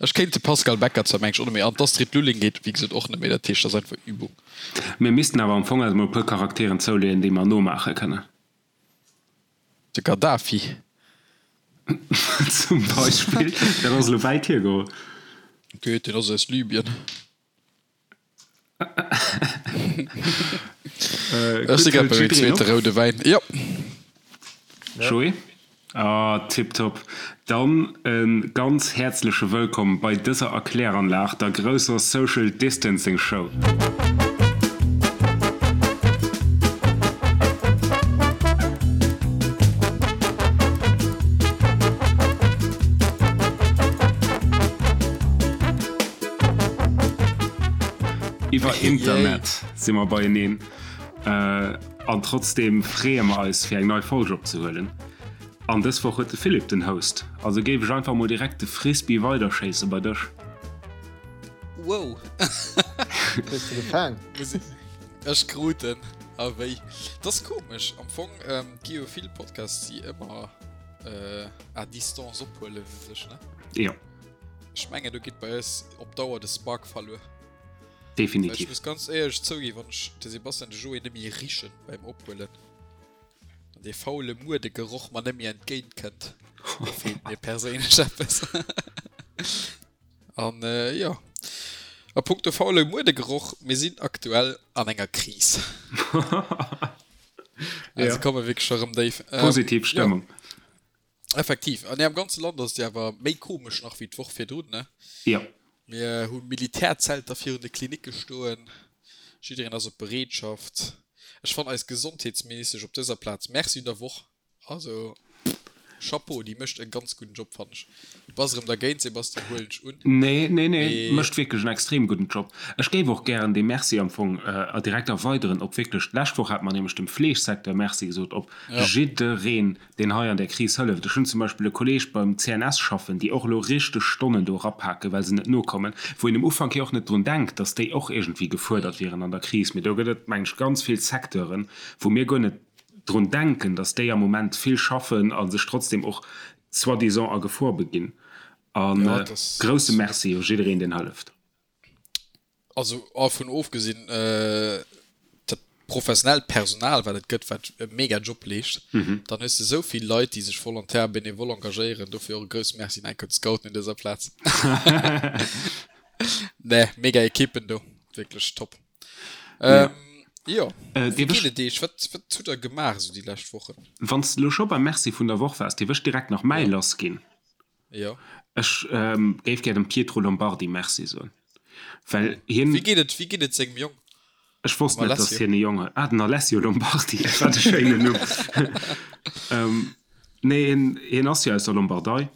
Ech kéint de Pascal Becker zwar mengen ech och net méi, an d'Astrid Lulling geet wéi gesot och net méi, dat heescht dat ass einfach Übung. Mir missten awer am Fong eis mol e puer Charakteren zouleeën, déi mer nomaache kënnen. De Gaddafi. Zum Beispill. Dat ass elo wäit hiergeholl. Geet, deen ass aus Libyen. Ech si grad bei mengem zweete roude Wäin. Jo. Joé? Ah, tiptop. Dann e ganz häerzleche Wëllkomm bei dëser Erkläranlag, der grousser Social Distancing Show. Iwwer Internet si mer beieneen an trotzdeem freeë mer eis fir eng nei Folg opzehuelen. An dës Woch huet de Philippe den Host, also géif ech einfach mol direkt de Frisbee weiderschéisse bei dech. Wow! Hues de gefaang? Ech krut en. A wéi? Dat ass komesch. Am Fong gi jo vill Podcasts, déi ëmmer à distance ophuelen u sech, ne? Jo. Ech mengen, do geet bei eis op Dauer de Spark verluer. Definitiv. Ech muss ganz éierlech zouginn, wann ech de Sebastian, de Joé net méi richen beim Ophuelen an dee faule Muerdegeroch mer net méi entgéint kënnt, da feelt mir perséinlech eppes. An jo, a punkto faule Muerdegeroch, mir sinn aktuell an enger Kris. Also komme wierklech scho rëm déif. Positiv Stëmmung. Effektiv. An am ganze Land ass et jo awer méi komesch nach wéi d'Woch virdrun, ne? Jo. Mir hu Militärzelter virun de Klinicke stoen. Jiddereen ass op Bereetschaft. Ech fannen eis Gesondheetsministesch op dëser Plaz Merci un der Woch. Also, Chapeau, déi mécht e ganz gudden Job, fannen ech. Du bass erëm dergéint, Sebastian, huelen ech un. Nee, nee, nee, mécht wierklech en extrem gudden Job. Ech géif och gären dee Merci am Fong direkt erweideren op wierklech, d'lescht Woch hate mer nämlech dem Fleegsecteur Merci gesot, op jiddereen, deen hei an där Kris hëlleft. Ech hunn zum Beispill e Kolleeg beim CNS schaffen, déi och elo richteg Stonnen do erapaken, well se net nokommen, wou een um Ufank jo och net drun denkt, datt déi och iergendwéi gefuerdert wieren an der Kris. Mee do gëtt et, meng ech, ganz vill Secteuren, wou mir guer net drun denken, datt déi am Moment vill schaffen a sech trotzdem och soi-disant a Gefor beginn. A grousse Merci u jiddereen, deen hëlleft. Also dervun ofgesinn, dat professionellt Personal, wat et gëtt, wat e mega Job leescht, dann hues de esou vill Leit, déi sech volontaire, bénévole engagéieren. Dofir och e grousse Merci un enk un d'Scouten un dëser Plaz. Nee, mega Ekippen do, wierklech top. Jo, wéi geet et Iech? Wat, wat hutt Der gemaach esou déi lescht Wochen? Wann s de elo scho beim Merci vun der Woch waars, dierf ech direkt nach mäi lassginn? Jo. Ech géif gär dem Pietro Lombardi Merci soen, well hien. Wéi geet et, wéi geet et sengem Jong? Ech wosst net, datt hien e Jong huet. Ah, den Alessio Lombardi, wat e schéinen Numm. Nee, hien, hien ass jo aus der Lombardei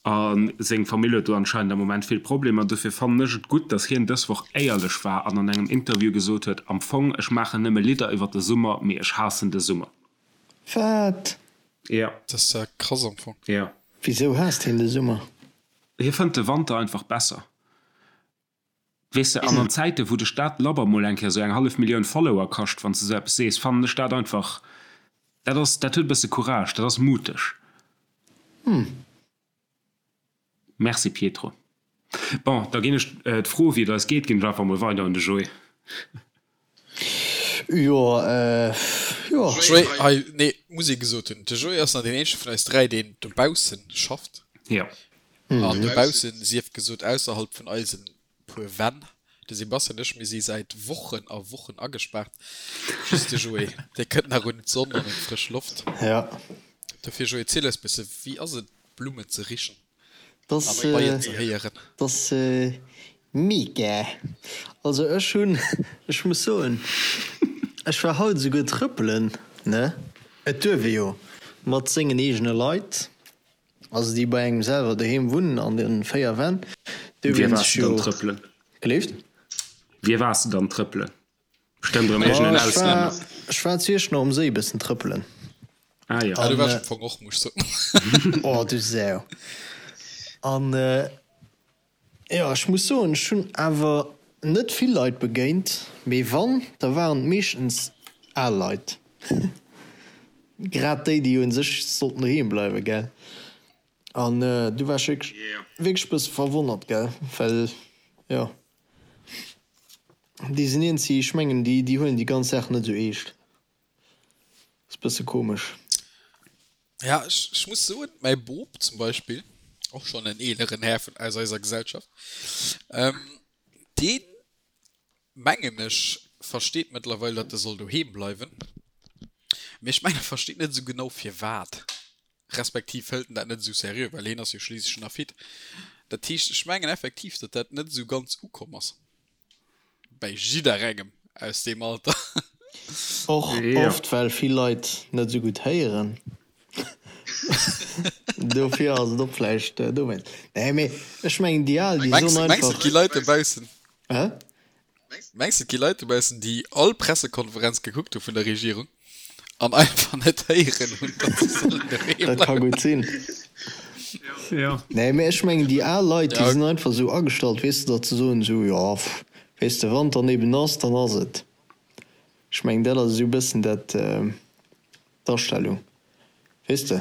a seng Famill huet do anscheinend am Moment vill Problemer. Dofir fannen ech et gutt, datt hien dës Woch éierlech war an an engem Interview gesot huet, Am Fong, ech maachen nëmme Lidder iwwer de Summer, mee ech haassen de Summer. Wat? Ja. Dat ass ja krass am Fong. Ja. Wisou haasst hien de Summer? Hie fënnt de Wanter einfach besser. Weess de, an an Zäiten, wou dech dat labber mol eng Kéier sou eng hallef Millioun Follower kascht, wann s de sou eppes sees, fannen ech dat einfach, dat ass, dat huet e bësse Courage, dat ass muteg. Hm. Merci Pietro. Bon, da ginn ech d'Fro wéi et eis geet, ginn ech einfach mol weider un de Joé. Jo, jo. Joé, hei, nee, muss ee gesot hunn, de Joé ass nach deen eenzege vun eis 3, deen dobaussen schafft. Jo. An dobaussen, sief gesot, ausserhalb vun eisen puer Wänn. De Sebastian an ech, mir si säit Wochen a Wochen agespaart. Just de Joé, dee kënnt nach un d'Sonn an un d'frësch Loft. Jo. Dofir, Joé, ziel eis bësse, wéi ass et, Blummen ze richen an d'Beien ze héieren? Dat ass mega. Also ech hunn, ech muss soen, ech war haut esouguer trëppelen, ne? Et duerf ee jo mat sengen eegene Leit, also déi bei engem selwer doheem wunnen an de 4 Wänn, duerf een sech jo. Gelift? Wie waars de dann trëppelen? Bestëmmt erëm iergendeen Auslänner. Ech war zu Iechternach um Séi bëssen trëppelen. Ah jo. Ah, do war ech am Fong och, muss ech soen. Oh, du Sau. An jo, ech muss soen, ech hunn awer net vill Leit begéint, mee wann, da waren et meeschtens al Leit. Grad déi, déi u sech sollten doheem bleiwen, gell? An du war ech wierklech, wierklech e bësse verwonnert, gell, well jo, déi sinn iergendwéi, ech mengen, déi, déi huelen déi ganz Saach net esou eescht. Ass bësse komesch. Ja, ech, ech muss soen, mäi Bop zum Beispill, och schonn en eeleren Här vun, aus eiser Gesellschaft, deen, mengen ech, versteet mëttlerweil, datt e soll doheem bleiwen, mee ech mengen, e versteet net esou genau firwat, respektiv hëlt en dat net esou seriö, well hien ass jo schliisslech nach fit. Dat heescht, ech mengen effektiv, datt dat net esou ganz ukomm ass bäi jidderengem aus deem Alter. Och oft well vill Leit net esou gutt héieren. Dofir ass et och vläicht dowéinst. Nee, mee ech mengen déi Al, déi soen einfach. Mengs de, et gi Leit dobaussen? Hä? Mengs de, et gi Leit dobaussen, déi all Pressekonferenz gekuckt hu vun der Regierung an einfach net héieren hunn, datt se sollen doheem bleiwen? Dat ka gutt sinn. Jo. Nee, mee ech mengen déi al Leit, déi sinn einfach esou agestallt, weess de, datt se soen esou, jo, weess de, wann et dann eben ass, dann ass et. Ech mengen, dat ass esou e bëssen dat. D'Astellung, weess de.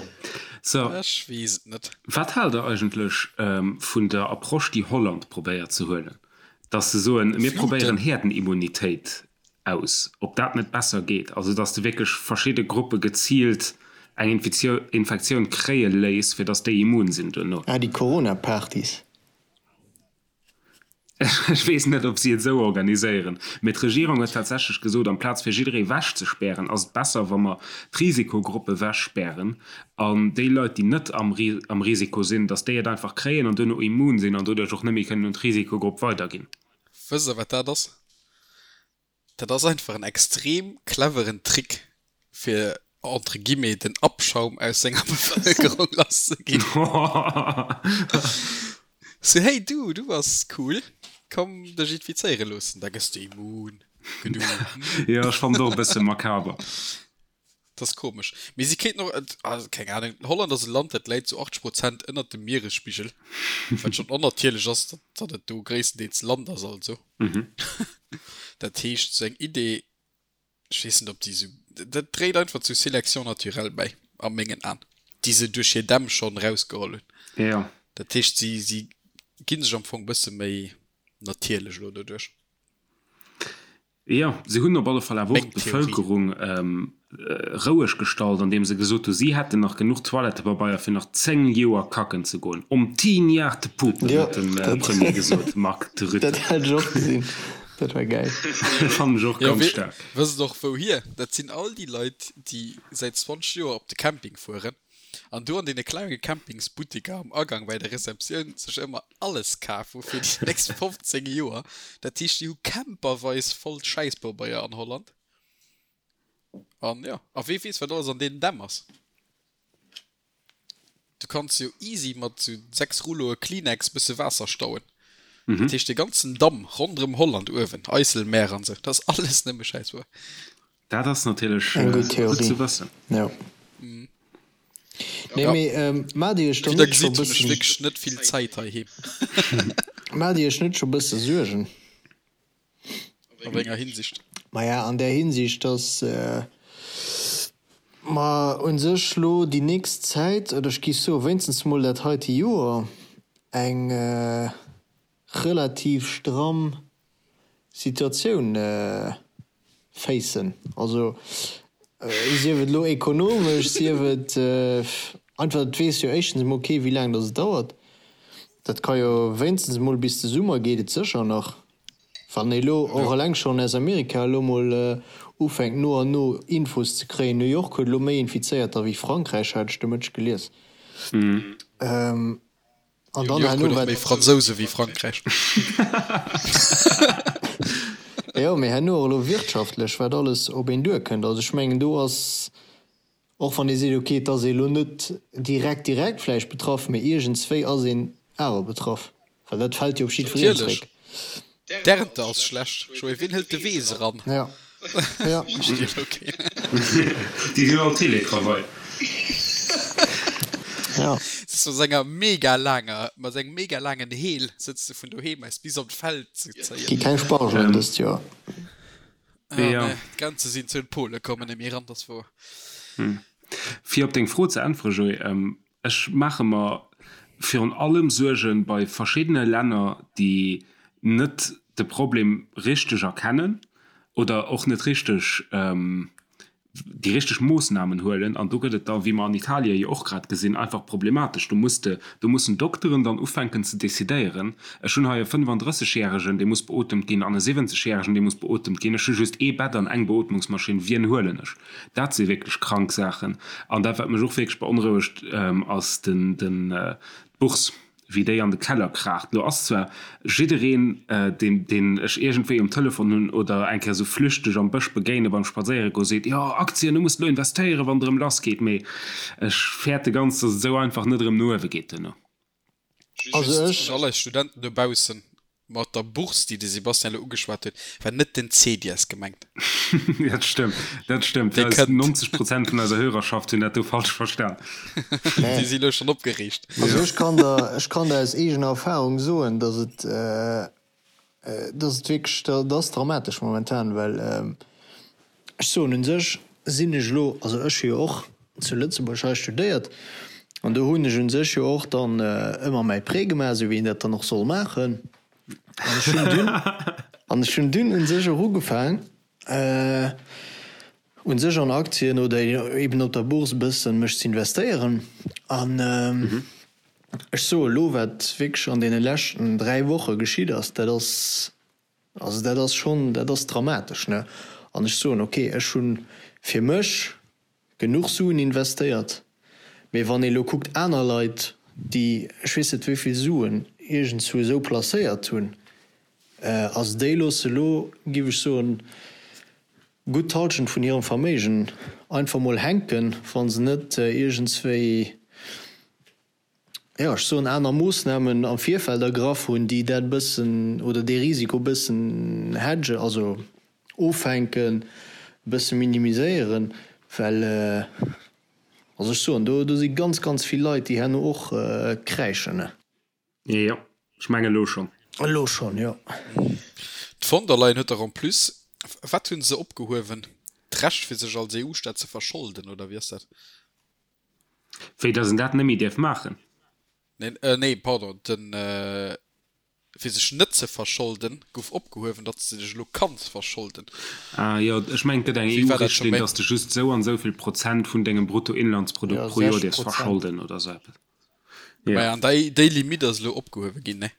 So, Ech weess et net. Wat haalt der eigentlech vun der Approche, déi Holland probéiert ze huelen, dass se soen, mir probéieren Herdenimmunitéit aus, ob dat net besser geet, also dass de wierklech verschidde Gruppe geziilt eng Infektioun kréie léiss, fir dass déi immun sinn duerno? Ah, déi Corona-Partys. Ech weess net, ob si et esou organiséieren, mee d'Regierung huet tatsächlech gesot, amplaz fir jidderee wechzespären, ass et besser, wa mer d'Risikogruppe wechspären an déi Leit, déi net am Risiko sinn, datt déi et einfach kréien an duerno immun sinn an doduerch och net méi kënnen un d'Risikogrupp weiderginn. Wësst Der, wat dat ass? Dat ass einfach en extrem cleveren Trick fir entre guillemets den Abschaum aus senger Bevëlkerung lass ze ginn. Sou, hey du, du bass cool, komm dech infizéiere loossen, da gëss de immun. Gedu. Jo, ech fannen et och e bësse makaber. Dat ass komesch. Mee si kéinten och, also keng Ahnung, Holland ass e Land, dat läit zu 80 Prozent ënnert dem Mieresspigel, wat schonn onnatierlech ass, datt et do gréisstendeels Land ass also. Dat heescht, sou eng Idee, ech weess net, ob déi sou, dat dréit einfach zu Sélection naturelle bäi, a mengen Aen, déi se duerch hir Dämm schonn erausgeholl hunn. Jo. Dat heescht, si, si gi sech am Fong e bësse méi natierlech elo doduerch. Jo, se hunn op alle Fall awer och d'Bevëlkerung roueg gestallt, andeem se gesot hu si hätten nach genuch Toilettepabeier fir nach 10 Joer kacken ze goen. Om tien jaar te poepen, huet de Premier gesot, Mark Rutte. Dat hat ech och gesinn, dat war gäil. Fannen ech och ganz staark. Wësst och wouhier? Dat sinn all déi Leit, déi säit 20 Joer op de Camping fueren an do an deene klenge Campingsbuttiker am Agang bei der Receptioun sech ëmmer alles kaf hu fir déi nächst 15 Joer. Dat heescht, déi hu camperweis voll Schäisspabeier an Holland. An jo, a wee weess, wat alles an deenen Dämm ass. Du kanns jo easy mat sou 6 Rulloe Kleenex bësse Waasser stauen. Dat heescht, dee ganzen Damm ronderëm Holland uewen, IJsselmeer an sou, dat ass alles nëmme Schäisspabeier. Dat ass natierlech Eng gutt gutt ze wëssen. Jo. Nee, mee maacht Dir iech dann net scho bëssen. Wierklech net vill Zäit heiheem. Maacht Dir iech net scho bësse Suergen? A wéi enger Hinsicht? Maja, an där Hinsicht, dass mer u sech lo déi nächst Zäit, oder ech géif soe wéinstens mol dat heite Joer, eng relativ stramm Situatioun facen. Also sief et elo ekonomesch, sief et einfach, et weess jo éischtens emol kee wéi laang datt et dauert. Dat ka jo wéinstens emol bis de Summer geet et sécher nach. Wann ee elo och eleng schonn aus Amerika elo mol ufänkt no an no Infos ze kréien, New York huet elo méi Infizéierter wéi Frankräich, hat ech de Mëtteg gelies. An dann herno wat. Méi Fransouse wéi Frankräich. Jo, mee herno och elo wirtschaftlech, wat alles op een duerkënnt. Also ech mengen, do ass, och wann ee seet, okay, et ass ee elo net direkt, direkt vläicht betraff, mee iergendswéi ass een awer betraff, well dat fält jo op jiddwereen zréck. D'Ernte ass schlecht. Joé, wien hëlt de Weess eran? Ja. Ja. Déi sinn all Télétravail. Ja. Sëtzt mat senger mega laanger, mat sengem mega laangen Heel sëtzt de vun doheem aus bis op d'Feld ze zéien. Gi keng Spargelen dëst Joer. Ah, ja. Nee, d'Grenze sinn zou, d'Pole kommen net méi eran, dat ass wouer. Fir op deng Fro ze äntweren, Joé, ech maache mer. virun allem Suerge bei verschiddene Länner, déi net de Problem richteg erkennen oder och net richteg déi richteg Moossnamen huelen. An do gëtt et da, wéi mer an Italie jo och grad gesinn, einfach problematesch. Do muss de, do mussen Dokteren dann ufänken ze decidéieren, ech hunn hei e 35 järegen, dee muss beotemt ginn, an e 70 järegen, dee muss beotemt ginn, ech hu just ee Bett an eng Beotmungsmaschinn, wien huelen ech? Dat si wierklech krank Saachen. An dat, wat mech och wierklech beonrouegt, ass den, den, d'Bourse. wéi déi an de Keller kraacht. Lo ass zwar jiddereen, deen, deen ech iergendwéi um Telefon hunn oder eng Kéier esou flüchteg am Bësch begéine beim Spadséiere goen, seet, Jo, Aktien, du muss elo investéieren, wann et erëm lass geet. Mee ech fäerte ganz, datt et esou einfach net erëm no uewe geet duerno. Also ech. Un all eis Studenten dobaussen, Mat der Bourse, déi de Sebastian elo ugeschwat huet, war net den CEDIES gemengt. Dat stëmmt, dat stëmmt. Dee kënnt. 90 Prozent vun eiser Hörerschaft hunn dat do falsch verstan. Déi si elo schonn opgereegt. Also ech kann der, ech kann der aus eegener Erfahrung soen, dass et, dass et wierklech, dat ass dramatesch momentan, well ech soen, u sech sinn ech elo, also ech hu jo och zu Lëtzebuerg hei studéiert an do hunn ech u sech jo och dann ëmmer mäi Prêt gemaach, esou wéi een dat dann och soll maachen. An ech hunn dunn, an ech hunn dunn u sech och ugefaang u sech an Aktien oder eben op der Bourse e bëssen mech ze investéieren. An ech soe elo, wat wierklech an deene leschten 3 Woche geschitt ass, dat ass Also dat ass schonn, dat ass dramatesch, ne? An ech soen, okay, ech hu fir mech genuch Suen investéiert, mee wann ee lo kuckt aner Leit, déi ech weess net wéi vill Suen iergendzwou esou placéiert hunn, also déi loosse lo, géif ech soen, gutt d'Hallschent vun hirem Verméigen einfach mol hänken, wa se net iergendswéi, jo, ech soen, aner Moossnamen am Virfeld ergraff hunn, déi dat e bëssen oder dee Risiko e bëssen hedgen, also offänken, e bësse minimiséieren, well, also ech soen, do, do si ganz, ganz vill Leit, déi herno och kräischen. Jo, ech mengen elo schonn. Elo schonn, jo. D'Von der Leyen huet dach en plus, wat hu se opgehuewen, d'Recht fir sech als EU-Staat ze verscholden, oder wéi ass dat? Wéi, dass en dat net méi däerf maachen? Neen, nee, pardon, den, fir sech net ze verscholden, gouf opgehuewen, datt s de dech elo kanns verscholden. Ah jo, ech mengen, et gëtt eng EU-Richtlinn, dass de just esou an esou vill Prozent vun dengem Bruttoinlandsprodukt pro Joer däerfs verscholden oder esou eppes. Jo. Maja, an déi, déi Limitt ass elo opgehuewe ginn, ne?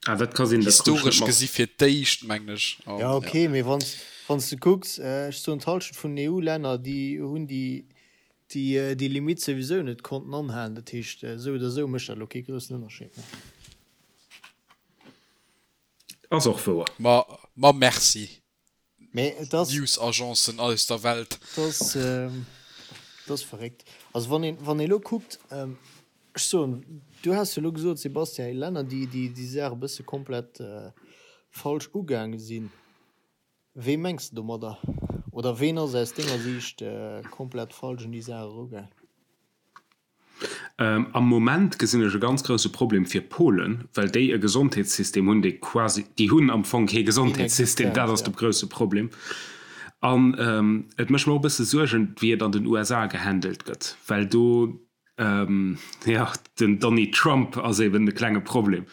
Ah, dat ka sinn, dat krut ech net mat. Historesch gesi fir d'éischt, mengen ech. Jo, okay, mee wann s, wann s de kucks, ech soen, d'Hallschent vun den EU-Länner, déi hunn déi déi déi Limitt souwisou net konnten anhalen. Dat heescht, esou oder esou mécht dat elo kee groussen Ënnerscheed méi. Ass och wouer. Ma, ma merci, Mee et ass. News-Agencen aus der Welt. Et ass, et ass verréckt. Also wann een, wann ee elo kuckt, ech soen, du has jo elo gesot, Sebastian, Länner, déi déi déi Saach e bësse komplett falsch ugaange sinn. Wee mengs de domadder? Oder ween ass aus denger Siicht komplett falsch un déi Saach erugaang? Am Moment gesinn ech e ganz grousse Problem fir Polen, well déi e Gesondheetssystem hunn, dee quasi, déi hunn am Fong kee Gesondheetssystem, dat ass de grousse Problem. An et mécht mer och e bësse Suergen, wéi et an den USA gehandelt gëtt, well do Jo, den Donny Trump ass eben de klenge Problem.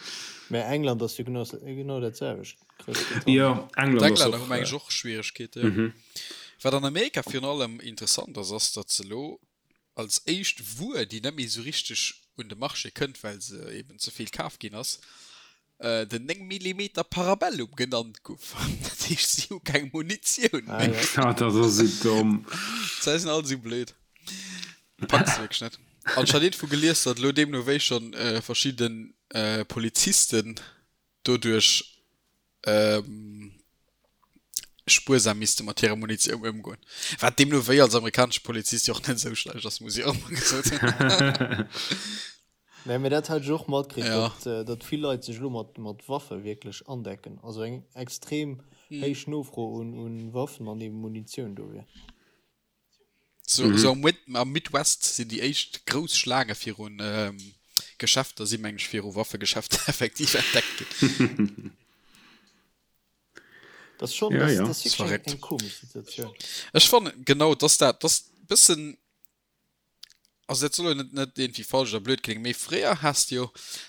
Mä England ass jo genau dat selwecht, Groussbritannien. Jo, England ass och. D'Englänner hu meng ech och Schwieregkeete, jo. Wat an Amerika virun allem interessant ass, ass datt se elo als éischt Wuer, déi net méi esou richteg un de Marché kënnt, well se eben ze vill kaf ginn ass, den 9 Millimeter Parabellum genannt guff. Dat heescht, si hu keng Munitioun méi. Ah, dat ass esou domm. D'Leit sinn all esou blöd. Packs de wierklech net. An ech hat iergendwou gelies, datt elo deemno wéi schonn verschidde Polizisten doduerch spuersam misste mat hirer Munitioun ëmgoen. Wat deemno wéi als amerikanesche Polizist jo och net esou schlecht ass, muss ech och mol gesot hunn. Nee, mee dat hat ech och matkritt, ja. datt, äh, datt vill Leit sech elo mat, mat Waffe wierklech andecken. Also eng extrem mhm. héich Nofro un, un Waffen an eben Munitioun do wier. So, mhm. so am, Mid am Midwest sinn déi éischt grouss Schlaange virun ähm, Geschäfter si meng ech viru Waffegeschäfter effektiv entdeckt ginn. Das ist schon, ja, das, ja. das ist wirklich eng, eng komisch Situation. Ech fannen genau, dass dat das bëssen. Also dat soll jo net net iergendwéi falsch oder blöd kléngen, mee fréier has de jo,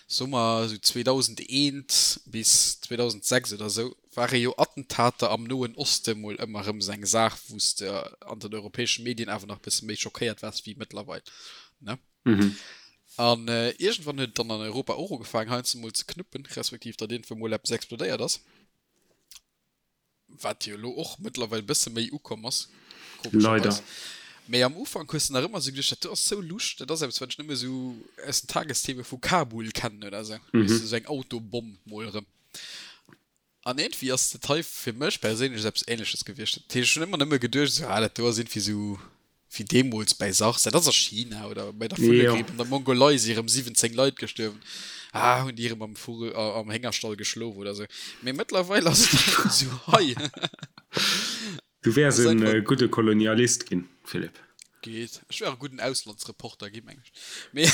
soe mer esou 2001 bis 2006 oder esou, ware jo Attentater am Noen Oste mol ëmmer erëm esou eng Saach, wou s de an den europäesche Medien awer nach e bësse méi schockéiert waars wéi mëttlerweil, ne? An iergendwann huet et dann an Europa och ugefaangen heiansdo mol ze knuppen, respektiv datt iergendwou mol eppes explodéiert ass. Wat jo elo och mëttlerweil bësse méi ukomm ass, komescherweis. Mee am Ufank hues de nach ëmmer esou geduecht, dat do ass sou lusch, dat ass eppes, wat ech nëmme esou aus den Tagestheme vu Kabul kennen oder esou. Weess de, esou eng Autobomm mol erëm. An iergendwéi ass dat hei fir mech perséinlech esou eppes Ähnleches gewiescht. Dat heescht, ech hunn ëmmer nëmme geduecht, esou, ah, dat do ass iergendwéi esou wéi deemools bäi SARS, dat ass a China, oder bei der Vullegripp an der Mongolei si erëm 17 Leit gestuerwen, ah, hunn déi erëm am Vugel, am Héngerstall geschlof oder sou. Mee mëttlerweil ass et einfach esou hei. Du wäers e gudde Kolonialist ginn, Philippe. Geet. Ech wär e gudden Auslandsreporter ginn, meng ech. Mee,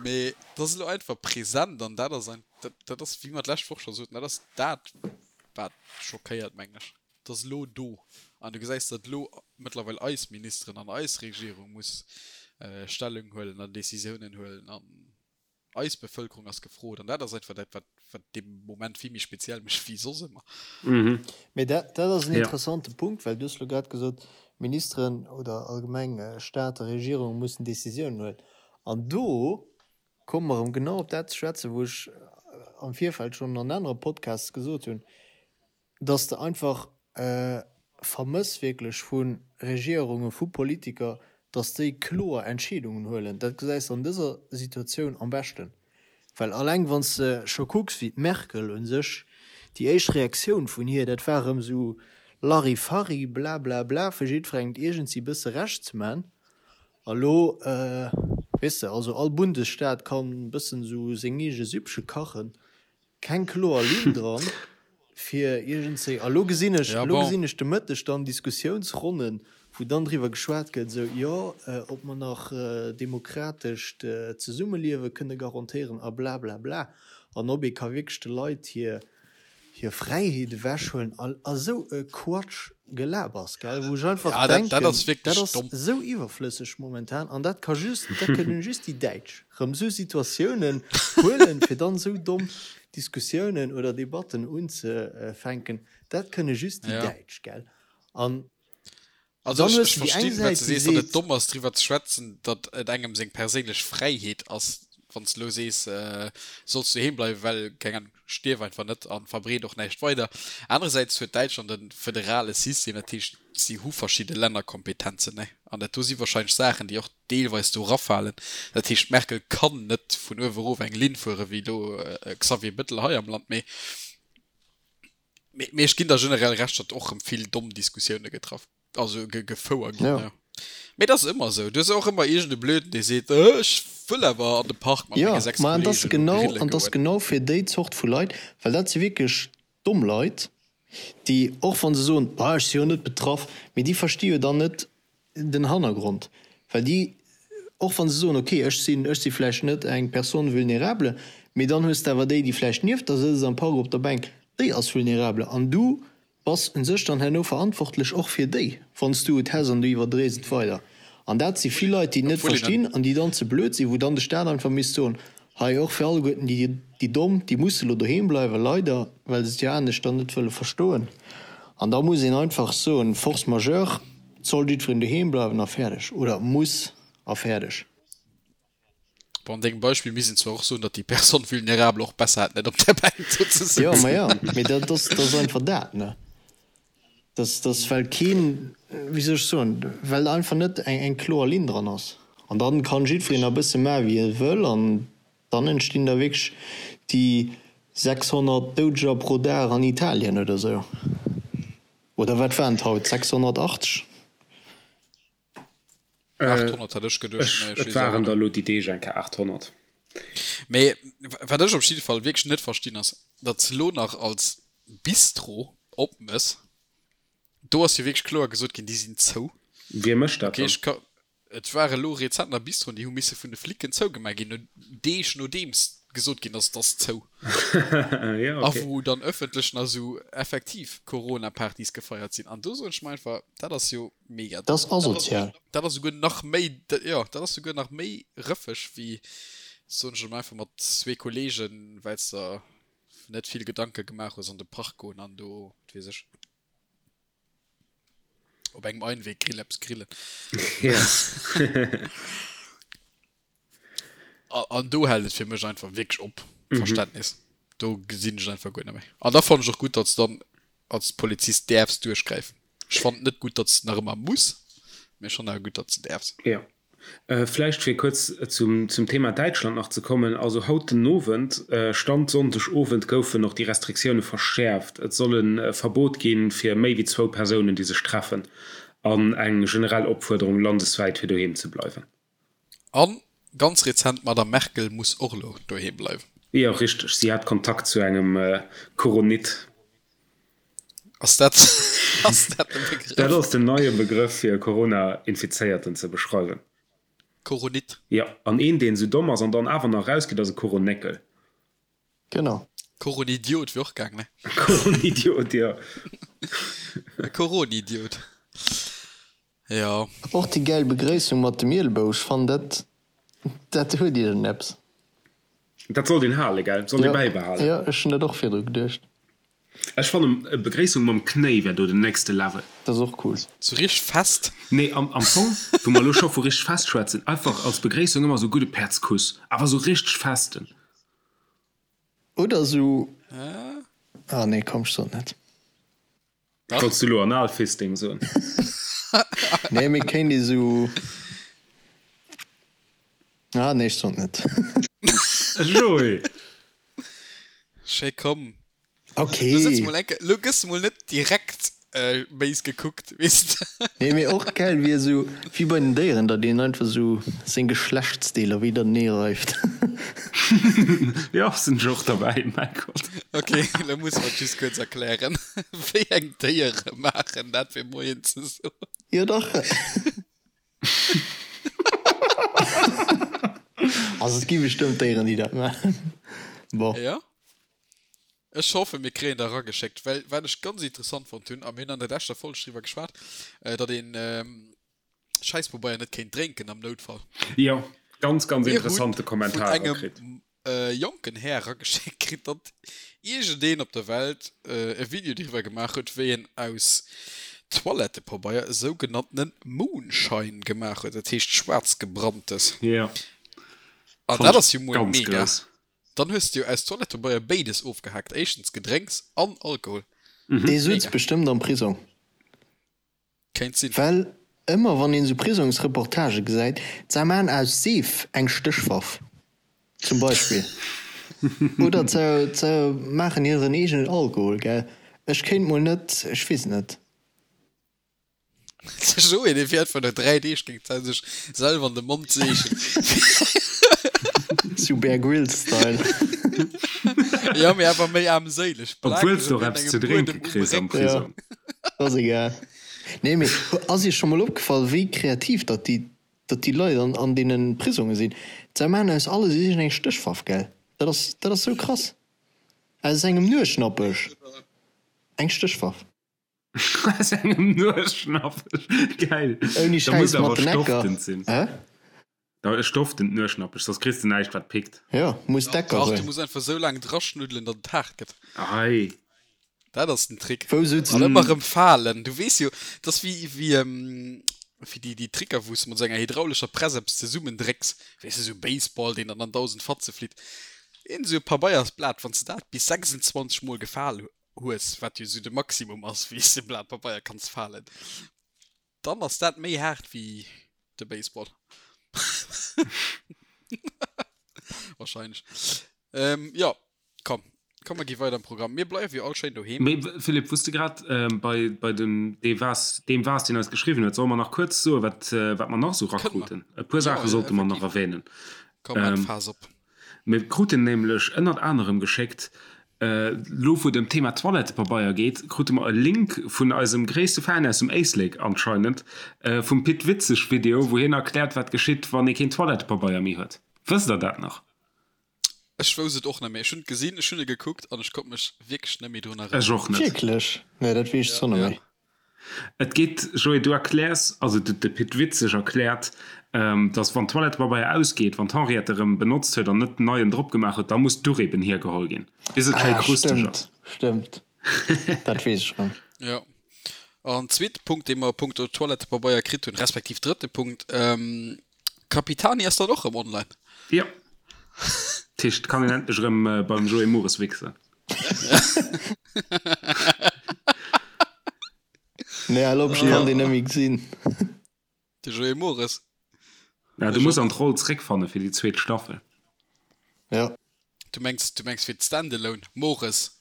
mee dat ass elo einfach present an dat ass ein, dat, dat ass, wéi mer d'lescht Woch scho soten, dat ass dat, wat schockéiert, meng ech. Et ass elo do. An du gesäis, datt elo mëttlerweil eis Ministeren an eis Regierung muss Stellung huelen an Décisiounen huelen an eis Bevëlkerung ass gefrot. An dat ass einfach dat, wat wat dee Moment vill méi speziell mécht wéi soss ëmmer. Mee dat dat ass en interessante Punkt, well du hues elo grad gesot, Ministeren oder allgemeng Staat a Regierung mussen Décisiounen huelen. An do komme mer erëm genau op dat ze schwätzen, wou ech am Virfeld schonn an anere Podcasts gesot hunn, dass de einfach vermëss wierklech vu Regierungen, vu Politiker, dass déi kloer Entscheedungen huelen. Dat gesäis de an dëser Situatioun am beschten. Well alleng wann s de scho kucks, wéi d'Merkel u sech, déi éischt Reaktioun vun hir, dat war erëm esou Larifari, blablabla, fir jiddwerengem et iergendwéi e bësse Recht ze man. A lo, weess de, also all Bundesstaat kann e bëssen esou seng eege Süppche kachen. Keng kloer Linn dran fir iergendzéi. A lo gesinn ech, lo gesinn ech de Mëtteg dann Diskussiounsronnen, wou dann driwwer geschwat gëtt, esou, jo, ob mer nach demokratescht Zesummeliewe kënne garantéieren a blablabla an ob ee ka wierklech de Leit hir hir Fräiheet ewechhuelen a esou e Quatsch Gelabers, gell, wou ech einfach denken, dat ass esou iwwerflësseg momentan an dat ka just, dat kënnen just déi Däitsch rëm esou Situatiounen huelen, fir dann esou domm Diskussiounen oder Debatten unzefänken. Dat kënne just déi Däitsch, gell. An Also ech, ech verstinn, wat s de sees, datt et domm ass, driwwer ze schwätzen, datt et engem seng perséinlech Fräiheet ass, wann s de elo sees, solls doheem bleiwen, well, keng Ahnung, stierf einfach net a verbreet och näischt weider. Anerersäits huet Däitschland e federale System, dat heescht, si hu verschidde Lännerkompetenzen, ne? An dat do si warscheinlech Saachen, déi och deelweis do erafalen. Dat heescht, d'Merkel kann net vun uewe erof eng Linn fueren, wéi elo e Xavier Bettel hei am Land, mee Mee ech ginn der generell Recht, datt och rëm vill domm Diskussioune getraff, also gefouer ginn. Ja. Mee dat ass ëmmer esou. Du hues och ëmmer iergend e Blöden, dee seet, ech wëll awer an de Park mat menge 6 Kollegen elo grille goen. An dat ass genau fir déi Zort vu Leit, well dat si wierklech domm Leit, déi och wa se soen, ah ech si jo net betraff, mee déi versti jo dann net den Hannergrond, well déi, och wa se soen, ok, ech sinn, ech si vläicht net eng Personne vulnérable, mee dann hues de awer déi, déi vläicht nieft der sëtzt am Park op der Bänk, déi ass vulnérable an du bass u sech dann herno verantwortlech och fir déi, wann s du et häss an du iwwerdréis et weider. An dat si vill Leit, déi et net verstinn an déi dann ze blöd sinn, wou dann de Staat einfach misst soen, Hei och fir alleguerten déi, déi Domm, déi musse lo doheem bleiwen, leider, well se et jo anescht dann net wëlle verstoen. An da muss een einfach soen, Force majeure, et soll jiddwereen doheem bleiwen a fäerdeg, oder muss a fäerdeg. Bon, an dengem Beispill misst een zwar och soen, datt déi Personne vulnérable och besser hätt, net op der Bänk do ze sëtzen. Jo, ma jo, mee dat ass, dat ass einfach dat, ne? Dat ass, well keen, wéi soll ech soen, well einfach net eng, eng kloer Linn dran ass. An dann kann jiddwereen e bësse maache wéi e wëll an dann entstinn da wierklech déi 600 Doudeger pro Dag an Italien oder esou. Oder wat waren et haut, 680? 800 hat ech geduecht, mee ech weess awer net. Et waren der elo déi Deeg eng Kéier 800. Mee wat ech op jidde Fall wierklech net verstinn ass, datt s elo nach als Bistro opmëss. Do ass jo wierklech kloer gesot ginn, déi sinn zou. Wie mécht dat dann? Okay, et war elo rezent nach Bistroen, déi hu misse vun de Flicken zougemaach ginn, no Deeg nodeems. gesot ginn ass, et ass zou. A wou dann ëffentlech nach esou effektiv Corona-Partys gefeiert sinn. An do soen ech mer einfach, dat ass jo mega Dat ass asozial. Dat ass souguer nach méi, jo, dat ass souguer nach méi rëffeg wéi, soen ech emol einfach, mat zwee Kollegen, well s der net vill Gedanke gemaach hues, an de Park goen an do, wat weess ech, op engem Einweg-Grill eppes grillen. An do hält et fir mech einfach wierklech op, Verständnis. Do gesinn ech et einfach guer net méi. An da fannen ech och gutt, datt s dann als Polizist däerfs duerchgräifen. Ech fannen et net gutt, datt s nach ëmmer muss, mee ech fannen awer gutt, datt s de däerfs. Jo. Vläicht fir kuerz zum Thema Däitschland nach ze kommen, also haut den Owend, Stand Sonndeg Owend, goufen och déi Restriktioune verschäerft. Et soll e Verbot gi fir méi wéi zwou Persounen, déi sech treffen an eng generell Opfuerderung landeswäit fir doheem ze bleiwen. An ganz rezent, d'Madame Merkel muss och elo doheem bleiwen. Jo, richteg, si hat Kontakt zu engem Koronit. Ass dat, ass dat de Begrëff? Dat ass den neie Begrëff fir e Corona-Infizéierten ze beschreiwen. Koronit? Jo, an een, deen esou domm ass an dann awer nach erausgeet, ass e Koronéckel. Genau. Koronidiot wier och gaang, ne? Koronidiot, jo. E Koronidiot. Jo. Och déi gäil Begréissung mat dem Ielbou, ech fannen dat, dat huet iergendeppes. Dat sollt een halen, gell? Sollt ee bäibehalen. Jo, ech hunn dat och virdru geduecht. Ech fannen e Begréissung mam Knéi wär do den nächste Level. Dat ass och cool. Sou richteg fest? Nee, am am Fong, wou mer elo scho vu richteg fest schwätzen, einfach als Begréissung ëmmer sou gudde Päerdskuss, awer sou richteg festen. Oder sou, ah nee, komm, ech sot net. Wollts du elo Analfisting soen? Nee, mee kéint ee sou, ah nee, ech sot net. Joé! Schéi, komm. Ok. Lo sëtz mol enke, lo gëss mol net direkt béis gekuckt, weess de. Nee, mee och gäil wier esou wéi bei den Déieren, datt een einfach esou seng Geschlechtsdeeler widernee reift. Jo, sinn ech och derbäi, mäi Gott. Ok, lo musse mer et just kuerz erklären, wéi eng Déiere maachen dat fir Moien ze soen. Jo dach. Also et gi bestëmmt Déieren, déi dat maachen. Bon. Jo. Ech hoffen, mir kréien der erageschéckt, well wat ech ganz interessant fonnt hunn, a mir hunn an der leschter Folg driwwer geschwat, datt een Schäisspobeier net kéint drénken am Noutfall. Jo, ganz, ganz interessante Kommentar erkritt. Mir hu vun engem jonken Här erageschéckt kritt, datt iergendeen op der Welt e Video driwwer gemaach huet, wéi en aus Toilettepabeier e sougenanntene Moonshine gemaach huet, dat heescht schwaarzgebranntes. Jo, An dat ass jo mol mega. Dann hues de jo aus Toilettepabeier béides ofgehaakt, éischtens Gedrénks an Alkohol. Dee sutz bestëmmt am Prisong. Kéint sinn. Well ëmmer wann een esou Prisongsreportagë gesäit, se maan aus Seef eng Stéchwaff zum Beispill, oder se maachen hiren eegenen Alkohol, gell. Ech kéint mol net, ech weess net. De Joé, dee fiert vun der 3 Deeg géint d'Zäit sech selwer an de Mond seechen. Sou Bear Grylls Style. Jo, mee awer méi aarmséileg. Obwuels de och eppes ze drénke kriss am Prisong. Jo, ass egal. Nee, mee ass iech scho mol opgefall, wéi kreativ datt déi, datt déi Leit an, an deene Prisonge sinn? Se maachen aus alles iergendeng Stéchwaff, gell? Dat ass, dat ass sou krass. Aus engem Nueschnappech eng Stéchwaff. Aus engem Nueschnappech. Geil. Ouni Da muss Schäiss awer mat den Ecker. stoftend sinn. Hä? Da stofft den Nueschnappech, soss kriss de näischt wat pickt. Jo, muss d'Ecker Dach, du sinn. muss einfach sou laang draschnuddelen, datt et haart gëtt. Ei. Dat ass den Trick. Wou sutz An ëmmer erëm falen. Du weess jo, dat ass wéi, wéi, wéi déi, déi Tricker, wou s de mat esou enger hydraulescher Press eppes zesummendrécks. Weess de, esou Baseball, deen dann an 1.000 Fatze flitt. Een esou e Pabeiersblat, wann s de dat bis 26 Mol gefal hues, wat jo esou de Maximum ass, wéi s de e Blat Pabeier kanns falen, dann ass dat méi haart wéi de Baseball. Wahrscheinlech. Ähm, jo, komm, komm mer gi weider am Programm. Mir bleiwe jo all schéin doheem. Mee Philippe, wou s de grad bei, bei dem, dee waars, deem waars, deen eis geschriwwen huet, solle mer nach kuerz soen, wat, wat mer nach esou Kënne mer. rakruten? E puer Jo, Saache sollte mer nach effektiv. erwänen. Komm, maan d'Faass op. Mir kruten nämlech ënnert anerem geschéckt, elo wou et ëm d'Thema Toilettepabeier geet, krute mer e Link vun eisem gréisste Fan aus dem Éislek anscheinend, vum Pit Witzeg Video, wou hien erkläert wat geschitt wann ee keen Toilettepabeier méi huet. Wësst der dat nach? Ech wousst et och net méi. Ech hunn et gesinn, ech hunn e gekuckt an ech konnt mech wierklech net méi drun erënneren. Ech och net. Wierklech? Nee, dat weess ech zwar net méi. Et geet, Joé, du erkläers, also de Pit Witzeg erkläert, dass wann Toilettepabeier ausgeet, wann d'Henriette erëm benotzt huet an net neien drop gemaach huet, da muss d'Duch eben hiergeholl ginn, bis et schéi krusteg ass. Stëmmt, stëmmt. Dat weess ech erëm. Jo. An zweete Punkt, dee mer a punkto Toilettepabeier kritt hunn, respektiv drëtte Punkt, Capitani ass dann och rëm online. Jo. Dat heescht, et kann een endlech erëm beim Joé Mores wichsen. Nee, al op, ech kann deen net méi gesinn. De Joé Mores. Ja, du muss an d'Roll zréckfanne fir déi zweet Staffel. Ja. Du mengs, du mengs fir d'Standalone Mores.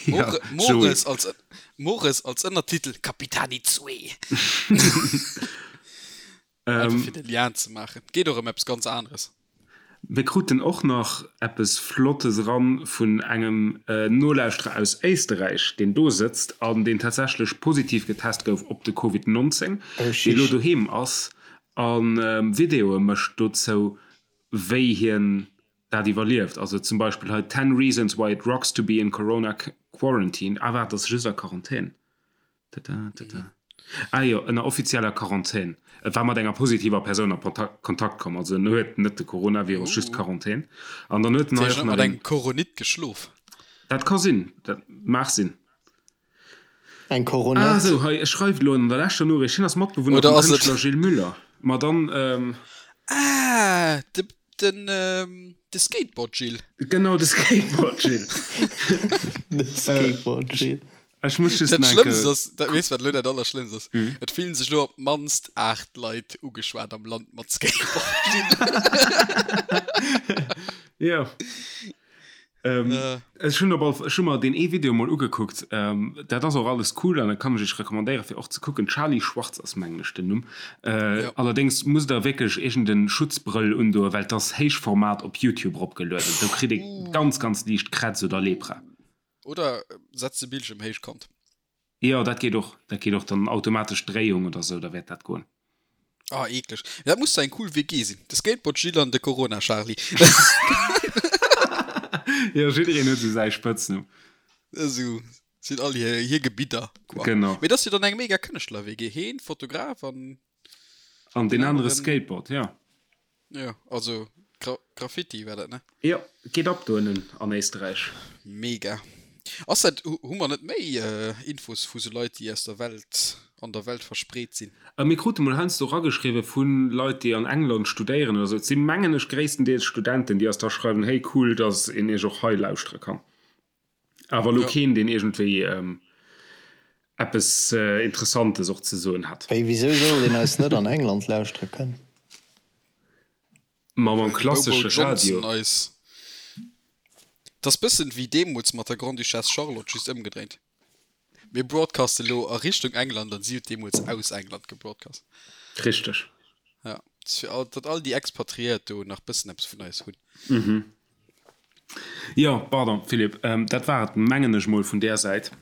Ja, Mores als, Mores als Ënnertitel Capitani 2. Einfach fir de Lien ze maachen. Geet och ëm eppes ganz aneres. Mir kruten och nach eppes Flottes eran vun engem Nolauschterer aus Éisterräich, deen do sëtzt an deen tatsächlech positiv getest gouf op de Covid 19, dee lo doheem ass a Videoe mécht dozou, wéi hien dat iwwerlieft. Also zum Beispill hei Ten reasons why it rocks to be in corona quarantine. Ah waart, ass just a Quarantän. Tada, tada. Ah jo, ënner offizieller Quarantän. E war mat enger positiver Persoun a Kontakt komm, also en huet net de Coronavirus, just Quarantän. An dann huet en hei och nach mat engem Coronit geschlof. Dat ka sinn, dat mag sinn. Eng Coronette. Ah sou, hei, e schreift elo an der leschter Noriicht, hien ass Matbewunner vum Kënschtler Gilles Müller. Ma dann. Ah, de, den, de Skateboard Gilles. Genau, de Skateboard Gilles. De Skateboard Gilles. Ech muss just Dat Schlëmmst ass, dat, weess wat elo dat Allerschlëmmst ass? Et fillen sech elo op d'mannst 8 Leit ugeschwat am Land mat Skateboard Gilles. Jo. Ech hunn op all, ech hu mer deen ee Video mol ugekuckt. Dat ass och alles cool an dat kann ech iech recommandéieren fir och ze kucken. Charlie Schwartz ass mengen ech den Numm. Allerdéngs musst der wierklech iergend en Schutzbrëll undoen, well et ass Héichformat op Youtube eropgelueden. Do kritt ee ganz ganz liicht Krätz oder Lepra. Oder setz de Bildschirm héichkant. Jo, dat geet och. Dat geet och dann automatesch Dréiung oder sou, da wäert dat goen. Ah, eekleg. Dat muss zwar eng cool WG sinn. De Skateboard Gilles an de Corona Charly. Jo, jiddereen huet sou säi Spëtznumm. Esou sinn all hir, hir Gebidder, quoi. Genau. Mee dat ass jo dann eng mega Kënschtler-WG. Heen, Fotograf an. An deen anere Skateboard, jo. Jo, also Gra Graffiti war dat, ne? Jo, geet ab do ënnen an Éisterräich. Mega. Ass dat, hu mer net méi Infos vu sou Leit, déi aus der Welt, an der Welt verspreet sinn? Mir krute mol heiansdo erageschriwwe vu Leit, déi an England studéieren oder sou. Et si mengen ech gréisstendeels Studenten, déi eis da schreiwen, hey cool, datt een iech och hei lauschtere kann. Awer elo keen, deen iergendwéi eppes Interessantes och ze soen hätt. Wéi, wisou sollt een eis net an England lauschtere kënnen? Ma mam klassesche Radio. Et ass bëssen wéi deemools mat der Grande-Duchesse Charlotte, just ëmgedréint. Mir broadcasten elo a Richtung England an si huet deemools aus England gebroadcast. Richteg. Ja, fir all, datt all déi Expatriéiert do nach bëssen eppes vun eis hunn. Jo, pardon Philippe, dat war et mengen ech mol vun där Säit.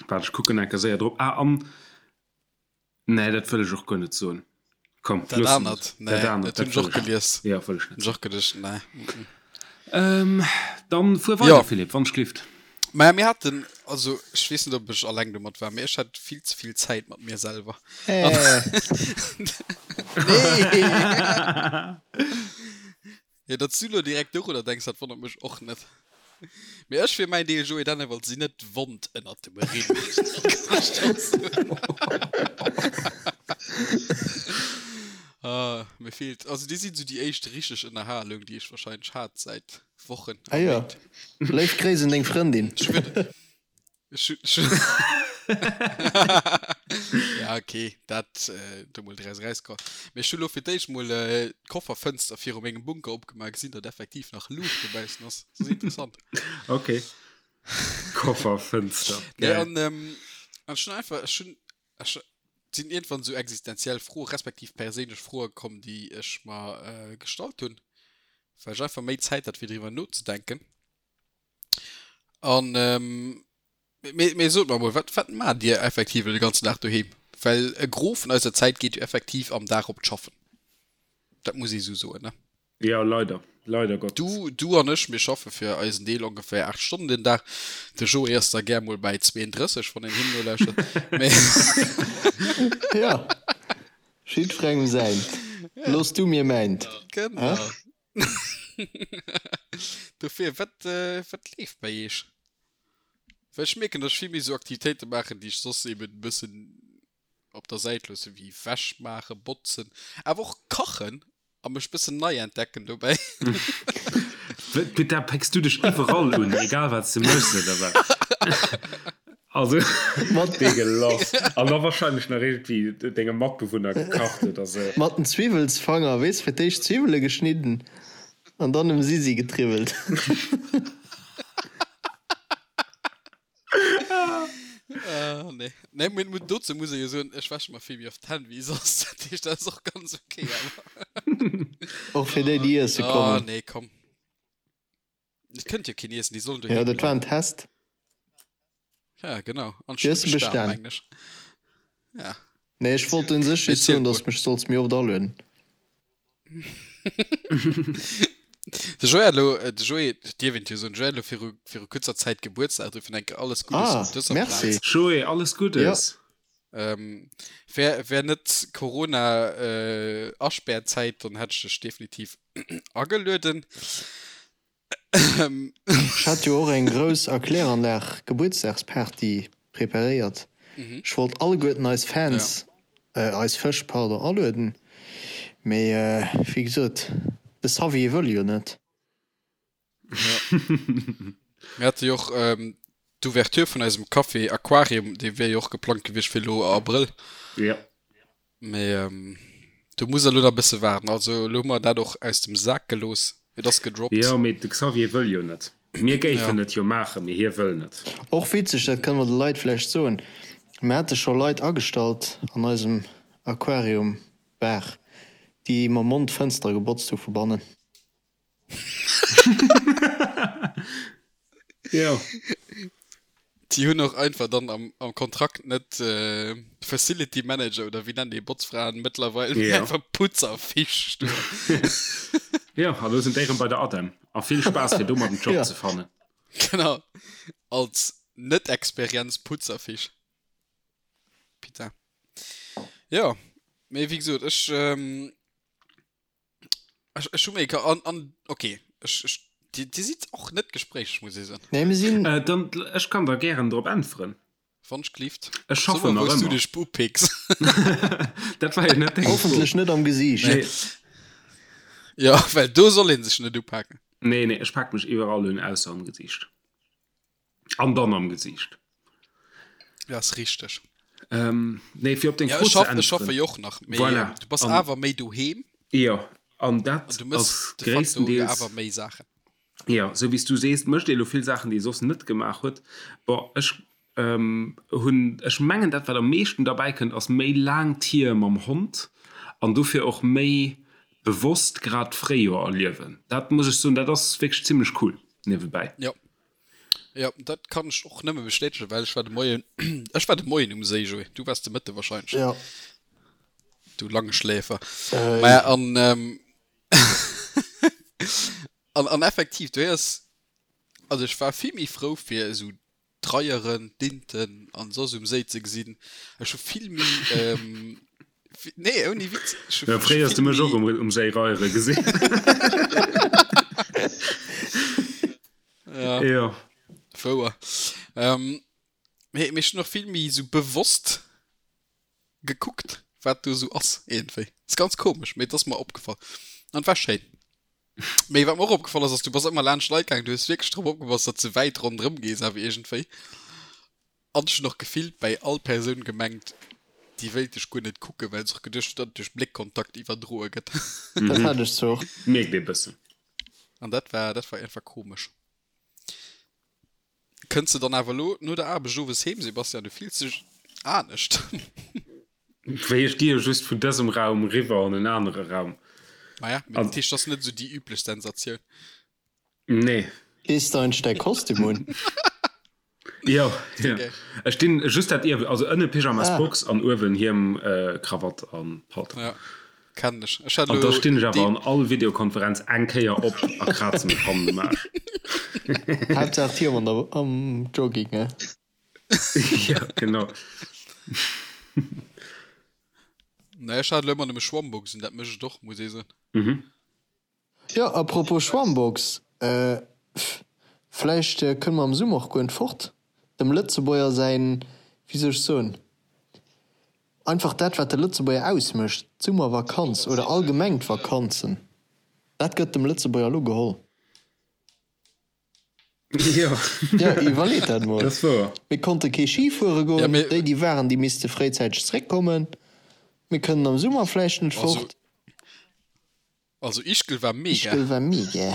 Waart ech kucken enker séier drop. Ah an, nee dat wëll ech och guer net soen. Komm, Dat loosse mer anert, et. nee, Dat anert, dat hunn ech wëll och ech net. gelies. Jo, wëll ech Hunn net ech och geduecht, nee. Ähm, dann fuer weider Jo. Philippe, wann ech glift. Maja, mir haten, also ech weess net ob ech alleng domat war, mee ech hat vill ze vill Zäit mat mir selwer. Äh. Nee! Jo, datt s du lo direkt dorunner denks, dat wonnert mech och net. Mee ech fir mäin Deel, Joé Dennewald, sinn net wond ënnert dem Rimm. Kann ech der soen. Ah, mir feelt, also déi sinn esou déi éischt richteg Ënnerhalung, déi ech wahrscheinlech hat säit Wochen a Ah jo, Méint. léif Gréiss un deng Frëndin. Ech wëll. Ja okay, dat äh, do mol draus rauskomm. Mee ech hu lo fir d'éischt mol äh, d'Kofferfënster viru mengem Bunker opgemaach, gesinn, datt effektiv nach Luucht dobaussen ass. Dat ass interessant. Okay. Kofferfënster. Nee, Geil. an, ähm, an ech hunn einfach, ech hunn, ech sinn iergendwann esou existenziell Froe respektiv perséinlech Froe komm, déi ech mer äh, gestallt hunn, well ech einfach méi Zäit hat fir driwwer nozedenken. An mee, mee sot mer emol, wat, wat maacht Dir effektiv elo de ganzen Dag doheem? Well e Gros vun eiser Zäit geet jo effektiv am Dag op d'Schaffen. Dat muss ee sou soen, ne? Jo, leider. Leider Gottes. Du, du an ech, mir schaffe fir eisen Deel ongeféier 8 Stonnen den Dag. De Joé ass da gär mol bäi 32, wann een him nolauschtert. Mee Ja, jiddwerengem säint. Looss du mir mäint. Genau. Dofir, wat, wat leeft bei iech? Well ech mierken, dass ech vill méi esou Aktivitéite maachen, déi ech soss eben e bëssen op der Säit loossen, wéi Wäsch maachen, botzen, awer och kachen a mech bëssen nei entdecken dobäi. Peter, pécks du dech iwwerall un, egal wat s de méchs, oder wat? Also, Mat dee gelass. An da wahrscheinlech nach iergendwéi dengem Matbewunner gekacht oder sou. Mat den Zwiwwelsfanger, weess, fir d'éischt Zwiwwele geschnidden an dann um Sisi getriwwelt. Ah, nee. Nee, mee mu- dozou muss ee jo soen, ech wäsche mer vill méi oft d'Hänn wéi soss. Dat heescht, dat ass och ganz okay, awer. Och fir déi, déi iesse Ah, kommen. nee, komm. Et kënnt jo keen iessen, déi sollen Jo, doheem dat war en bleiwen. Test. Ja, genau. An Déi ech hues hunn de bestan, bestan. mengen ech. Ja. Nee, ech wollt un sech Mee just ziel soen, mol. dass mech solls méi oft alueden. De Joé hat elo, de Joé, dierf een jo soen, de Joé hat elo viru, viru kuerzer Zäit Gebuertsdag, dofir enke alles Guddes Ah, op dëser merci. Plaz. Joé, alles Jo. Guddes! Ähm, wär, wär net Corona, äh, Aspärzäit, dann hätt ech dech definitiv agelueden. Ech hat jo och eng grouss a Kläranlag Gebuertsdagsparty preparéiert. Ech wollt alleguerten eis Fans, eis Fësch, pardon, alueden, mee wéi gesot, de Xavier wëll jo net. Mir hate jo och d'Ouverture vun eisem Café Aquarium, dee wier jo och geplangt gewiescht fir elo Abrëll. Mee do muss der elo nach e bësse waarden. Also elo hu mer dat och aus dem Sak gelooss. Et ass gedroppt. Jo, mee de Xavier wëll jo net. Mir géifen et jo maachen, mee hie wëll net. Och witzeg, dat kënne mer de Leit vläicht soen, mir hate scho Leit agestallt an eisem Aquarium Bar, déi mam Mond d'Fënstere gebotzt hu vu bannen. Jo. Déi hunn och einfach dann am, am Kontrakt net äh, Facility Manager oder wéi nennen déi Botzfraen mëttlerweil, mee Ja. einfach Putzerfisch stoen. Jo, a lo sinn déi erëm bei der ADEM. A vill Spaass fir domat en Job Ja. ze fannen. Genau. Als Net-Experienz Putzerfisch. Putain. Jo, mee wéi gesot, ech, ähm, Ech, ech hu méi ka an, an okay. Ech, ech, Dir, Dir sidd och net gespréicheg, muss ee soen. Nee, mir sinn. Äh, dann, ech kann der gären drop äntweren. Wann ech gelift. Ech So schaffen mal, nach wou s du ëmmer. dech upicks. Dat war jo net deng Fro. Hoffentlech net am Gesiicht. Nee. Ja, well do soll ee sech net upaken. Nee, nee, ech pak mech iwwerall un, ausser am Gesiicht. An dann am Gesiicht. Ja, ass richteg. Ähm, nee, fir op deng Ja, Fro ech ze schaff, ech schaffe äntweren. jo och nach, mee Voilà. du bass An, awer méi doheem jo, an an dat du mëss ass de facto jo gréisstendeels, awer méi Saachen. jo, sou wéi s du sees, mécht ee lo vill Saachen, déi ee soss net gemaach huet. Bon, ech ähm, hunn, ech mengen, dat wat am meeschten derbäi kënnt, ass méi laang Tier mam Hond an dofir och méi bewosst grad d'Fréijoer erliewen. Dat muss ech soen, dat ass wierklech zimlech cool niewebäi. Jo. Jo, dat kann ech och nëmme bestätegen, well ech war de Moien, ech war de Moien um Séi, Joé. Du waars de Mëtte wahrscheinlech. Ja. Du Langschläfer. Äh. Maja, an, ähm, an, an effektiv, du héiers, also ech war vill méi frou fir esou d'Reieren, d'Inten an soss um Séi ze gesinn. Ech hu vill méi, ähm, nee, ouni Witz, ech hu Ja, fréier hues du vill mech och méi. um, um Séi reiere gesinn. Ja, Jo. wouer. Ähm, mee, mee ech hunn och vill méi esou bewosst gekuckt, wat do esou ass iergendwéi. Ass ganz komesch, mee et ass mer opgefall. An et war schéin. Mee wat mer och opgefall ass, ass du bass ëmmer laanscht Leit gaangen, du hues wierklech drop opgepasst, datt s de wäit ronderëm gees awer iergendwéi. An ech hunn och gefillt bäi all Persoun gemengt, déi wéilt dech guer net kucken, well se och geduecht huet, datt et duerch Bléckkontakt iwwerdroe gëtt. Dat hat ech zwar och. Mierkt ee bëssen. An dat war, dat war einfach komesch. Kënns de dann awer elo no der Aarbecht owes heem, Sebastian? Du fills dech anescht. Wéi ech gi jo just vun dësem Raum riwwer an en anere Raum. Maja, mee dat heescht, dat ass net esou déi üblech Sensatioun. Nee. Dees de eigentlech däi Kostüm un? Jo, jo. Ech dinn just dat Ierwen, also ënne Pyjamas, Ah. Box an uewen Hiem, Krawatt an Paltong. Ja. Kennen ech. Ech hat An da elo stinn ech awer dee. an all Videokonferenz eng Kéier op a kraze mech hannen um Aarsch. Haaptsaach d'Hiem an der am Jogging, ne? Ja, genau. Nee, ech hat elo ëmmer nëmme Schwammbox un, dat mécht et och, muss ee soen. Mhm. Jo, à propos Schwammbox, vläicht kënne mer am Summer och guer net fort. Dem Lëtzebuerger säin, wéi soll ech soen, einfach dat wat de Lëtzebuerger ausmécht, d'Summervakanz oder allgemeng d'Vakanzen, dat gëtt dem Lëtzebuerger elo geholl. Jo, Jo, iwwerleet dat mol. dat ass wouer. Mir konnte kee Ski fuere Ja, goen, mee déi déi waren, déi misste fréizäiteg zréckkommen. Mir kënnen am Summer vläicht net also, fort. also Ischgl war mega. Ischgl war mega.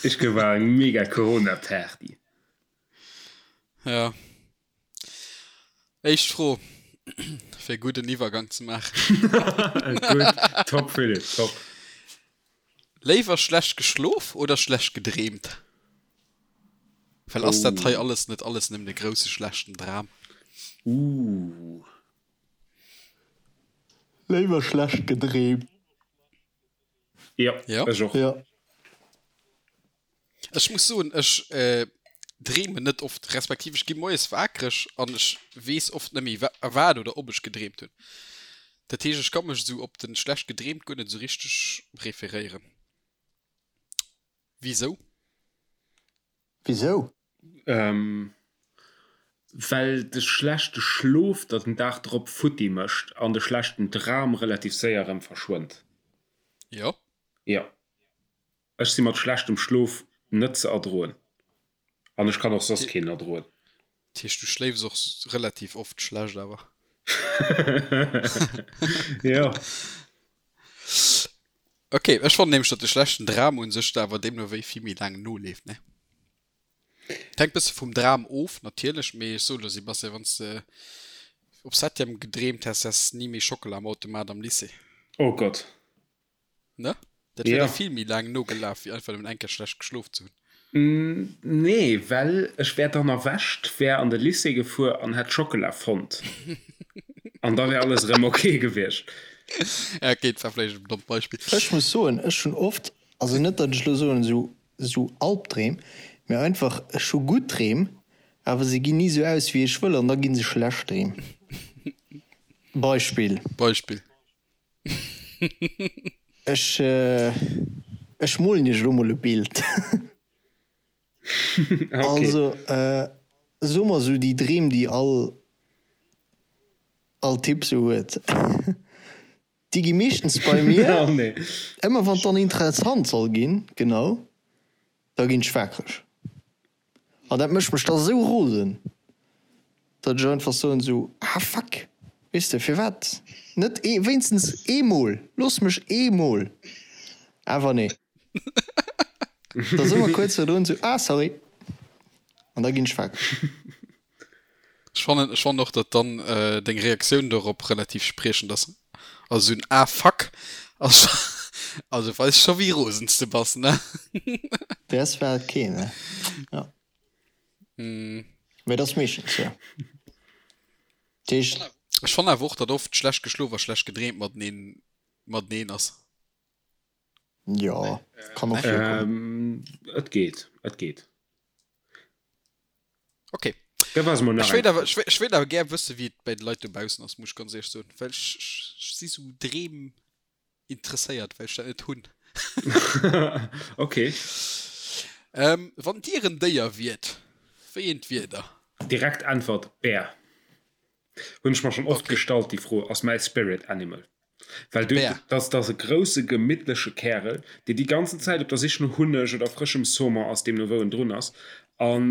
Ischgl war eng mega Corona-Party. Ja. Éischt Fro, fir e gudden Iwwergang ze maachen. Gutt, top Philippe, top. Léiwer schlecht geschlof oder schlecht gedreemt? Well ass dat hei alles net alles nëmmen e grousse schlechten Dram? Ooh. Léiwer schlecht gedreemt. Jo, Jo. ech och. Jo. Ech muss soen, ech dreemen net oft, respektiv ech gi moies waakreg an ech weess oft net méi wat oder ob ech gedreemt hunn. Dat heescht, ech ka mech esou op den schlecht gedreemt guer net esou richteg referéieren. Wisou? Wisou? Well de schlechte Schlof der den Dag drop futti mécht an de schlechten Dram relativ séier erëm verschwënnt. Jo. Jo. Ech si mat schlechtem Schlof net ze erdroen an ech kann och soss keen erdroen. Dat heescht du schléifs och relativ oft schlecht awer? Jo. Ok, ech fannen nämlech datt de schlechten Dram un sech der awer deemno wéi vill méi laang noleeft, ne? Et hänkt bësse vum Dram of natierlech, mee ech soe lo Sebastian, wann s de op Septième gedreemt häss, häss ni méi Schockela am Automat am Lycée. Oh Gott. Ne? Dat wier Ja. der vill méi laang nogelaf, wéi einfach nëmmen eng Kéier schlecht geschlof ze hunn. Nee, well ech wär dann erwächt, wär an de Lycée gefuer an hätt Schockela fonnt. An da wär alles erëm ok gewiescht. Ja, ok, dat war vläicht en dommt Beispill. Ech muss soen, ech hunn oft, also net datt ech elo soen esou esou Albdreem, mee einfach ech hu gutt Dreem, awer se ginn ni esou aus wéi ech wëll an da gi se schlecht Dreem. Beispill. Beispill. Ech ech molen iech elo mol e Bild. Okay. Also soe mer esou déi Dreem déi all all Typ sou huet, déi gi meeschtens bei mir Oh nee. ëmmer wann et dann interessant soll ginn, genau, da ginn ech waakreg. An dat mécht mech da sou rosen, datt ech einfach soen sou, ah fuck, weess de, firwat net ee, wéinstens eemol, looss mech eemol, awer nee. Da si mer kuerz virdrun sou, ah sorry, an da ginn ech wakereg. Ech fannen, ech fannen och, datt dann deng Reaktioun dorop relativ spriechend ass. Also sou en ah fuck ass scho, also weist scho wéi rosen s de bass, ne? Däers war et keen, ne? Jo. Mee et ass meeschtens, jo. Dat heescht. Ech fannen awer och, datt oft schlecht geschlof a schlecht gedreemt mateneen, mateneen ass. Jo, kann och virkommen. Et geet, et geet. Ok. Da war se mol nach Ech wéilt eng awer, Fro. ech wéilt awer gär wëssen, wéi et bei de Leit dobaussen ass, muss ech ganz éierlech soen, well ech, ech si sou Dreem interesséiert, well ech dat net hunn. Ok. Ähm, wann Dir en Déier wiert, wéi eent wiert Der? Direkt Äntwert, Bär. Hunn ech mer schonn oft Okay. gestallt déi Fro. Ass mäi Spirit Animal. Well du, Bär. dass dass e grousse gemittleche Kärel, dee déi ganzen Zäit op der Sich no Hunneg oder frëschem Saumon ass, deemno wou en drun ass. An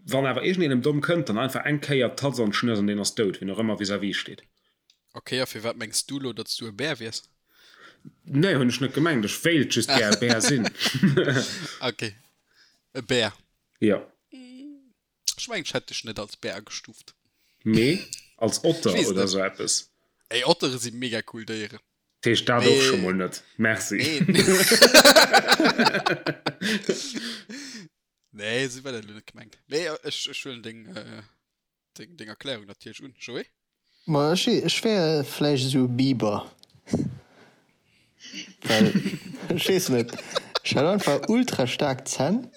wann awer iergendeen em domm kënnt, dann einfach eng Kéier d'Tatz an d'Schnëss an deen ass dout, wien och ëmmer vis-à-vis steet. Ok, a firwat mengs du lo, datt s du e Bär wiers? Nee, hunn ech net gemengt. Ech wéilt just gär e Bär sinn. Ok, e Bär. Jo. Ech mengen, ech hätt dech net als Bär agestuuft. Nee, als Otter Ech weess oder net. sou eppes. Ey, Ottere si mega cool Déieren. Dat heescht dat och scho Mee mol net. Merci. nee. Nee, esou war dat elo net gemengt. Mee ech, ech huelen deng, deng, deng Erklärung natierlech un, Joé. Ma ech, ech wär vläicht esou e Biber. Well, ech weess net, ech hätt einfach ultra staark Zänn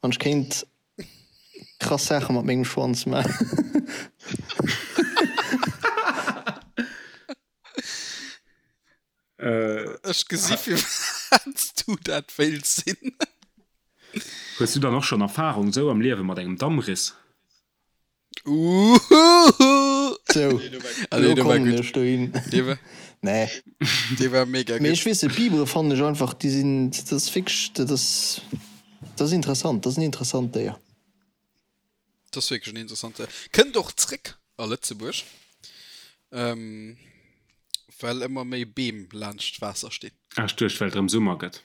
an ech kéint krass Saache mat mengem Schwanz maachen. Ech gesi firwat s du dat wéilts sinn. Hues du dann och schonn Erfarung sou am Liewe mat engem Dammriss? Uuhuhu! Sou, elo kommen ech dohin. Nee. Dee war mega gutt. Mee ech weess net, Bibere fannen ech einfach, déi sinn, dat ass wierklech, dat ass, dat ass interessant, dat ass en interessant Déier. Dat ass wierklech en interessant Déier. Kënnt och zréck a Lëtzebuerg, well ëmmer méi Beem laanscht d'Waasser stinn. Ah, ech duecht, well et erëm Summer gëtt.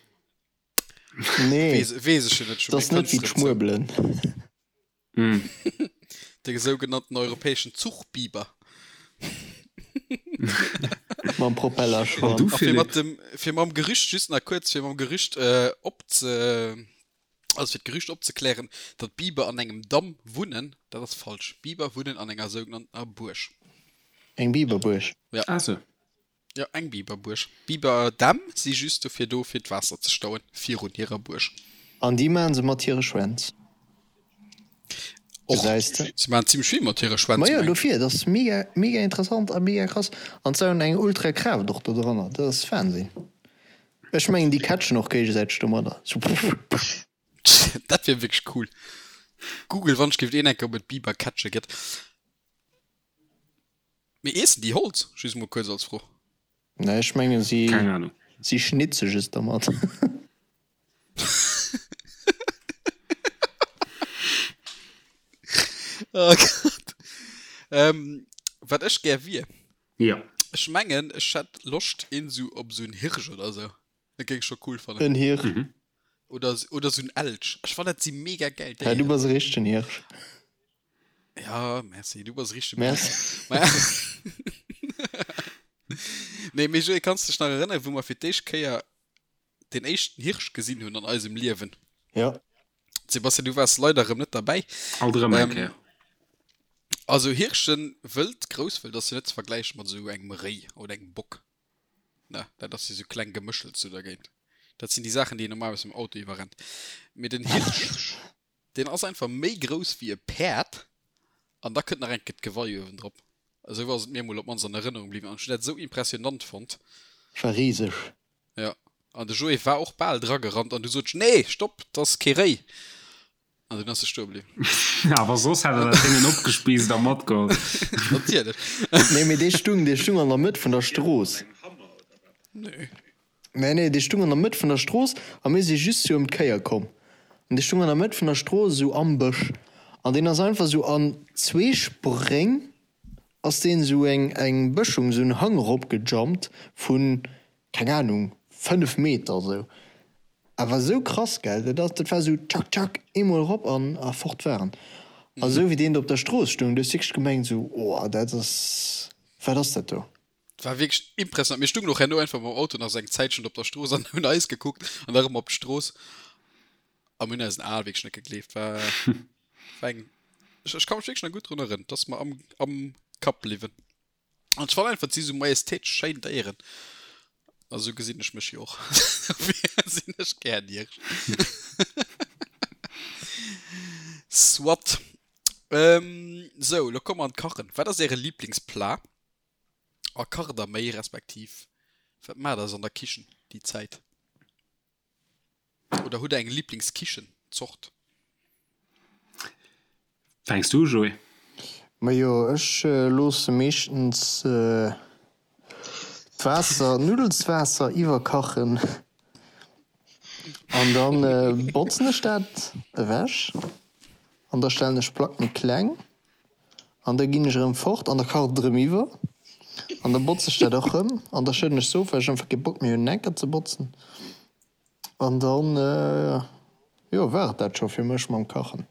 Nee, Weess ech jo net, dat ass net wéi d'Schmuebelen. De sougenannten europäeschen Zuchbiber. Mam Propellerschwanz. A fir mat dem, fir mam Gerücht, just nach kuerz, fir mam Gerücht opze, also fir d'Gerücht opzeklären, datt Biber an engem Damm wunnen, dat ass falsch. Biber wunnen an enger sougenanntener Buerg. Eng Biberbuerg? Ja. Ah sou. Jo, eng Biberbuerg. Biberdämm si just dofir do, fir d'Waasser ze stauen virun hirer Buerg. An déi maachen se mat hire Schwänz. Och. Gesäis de? Si maachen zimmlech vill mat hire Schwänz, Majo, dofir, et ass mega, mega interessant a mega krass. An se hunn eng ultra Kraaft och do dranner, dat ass Wahnsinn. Ech mengen, déi catchen och géigesäiteg domadder, sou puff, puff. Dat wier wierklech cool. Google, wann ech géif een enke, ob et Bibercatche gëtt. Mee iessen déi Holz? Just mol kuerz als Fro. Nee, ech mengen si Keng Ahnung. si schnitze just dermat. Oh Gott. Ähm, wat ech gär wier? Ja. Ech mengen ech hätt Loscht een sou op sou en Hirsch oder sou. Dat géing ech scho cool fannen. En Hirsch. Mhm. Oder, oder sou en Elch. Ech fannen dat si mega gäil Ja, du Déieren. bass e richtegen Hirsch. Ja, merci, du bass richtege Merci. Nee, mee Joé, kanns dech nach erënneren, wou mer fir d'éischt Kéier den éischten Hirsch gesinn hunn an eisem Liewen? Ja. Sebastian, du waars leider erëm net derbäi. Alt erëm eng Kéier. Also Hirschen, wëld, grousswëld ass jo net ze vergläiche mat esou engem Réi oder engem Bock. Ne, dat ass jo sou kleng Gemëschels do dergéint. Dat sinn déi Saachen, déi een normalerweis mam Auto iwwerrennt. Mee den Hirsch, deen ass einfach méi grouss wéi e Päerd an da kënnt nach eng Kéier d'Gewei uewendrop. Esou ass et mir emol op d'mannst an Erënnerung bliwwen an ech hunn dat esou impressionant fonnt. War riseg. Jo, an de Joé war och bal dragerannt an du sot ech, Nee, stopp, 't ass kee Réi! An dunn ass e stoe bliwwen. Awer soss hätt er dat Déngen opgespiisst a matgeholl. Natierlech. Nee, mee dee stung, dee stung an der Mëtt vun der Strooss. Nee. Nee, nee, dee stung an der Mëtt vun der Strooss a mir si just sou ëm d'Kéier komm. An dee stung an der Mëtt vun der Strooss, esou am Bësch. An deen ass einfach sou an zwee Spréng ass deen esou eng, eng Bëschung, esou en Hang eropgejumpt vun, keng Ahnung, 5 Meter esou. Awer esou krass, gell? Dat ass, dat war esou tschak, tschak, eemol erop an a fort war en. A esou wéi deen do op der Strooss stoung, du hues wierklech gemengt esou, oh, dat ass, wat ass dat do? Et war wierklech impressionant. Mir stungen och herno einfach mam Auto nach esou eng Zäitchen op der Strooss an hunn eis gekuckt an da erëm op d'Strooss a mir hunn eisen Ae wierklech net gegleeft. War, war eng, ech, ech ka mech wierklech nach gutt drun erënneren, et ass mer am, am Kapp bliwwen. An ech fannen einfach, et si sou majestätesch schéin Déieren. A sou gesinn ech mech jo och. Dofir sinn ech gär Niersch. Soit. Ähm, sou, lo komme mer an d'Kachen. Wat ass äre Liblingsplat? A kacht der méi, respektiv wat maacht der sou an der Kichen déi Zäit? Oder hutt der eng Liblingskichenzort? Fänks du u, Joé? Majo, ech loosse meeschtens d'Waasser, d'Nuddelswaasser iwwerkachen an da botzen ech dat ewech an da stellen ech d'Plack méi kleng an da ginn ech erëm fort an da kacht et erëm iwwer an da botze ech dat och erëm an da schëdden ech se of, well ech einfach kee Bock méi hunn enker ze botzen an dann, jo, war et dat scho fir mech mam Kachen.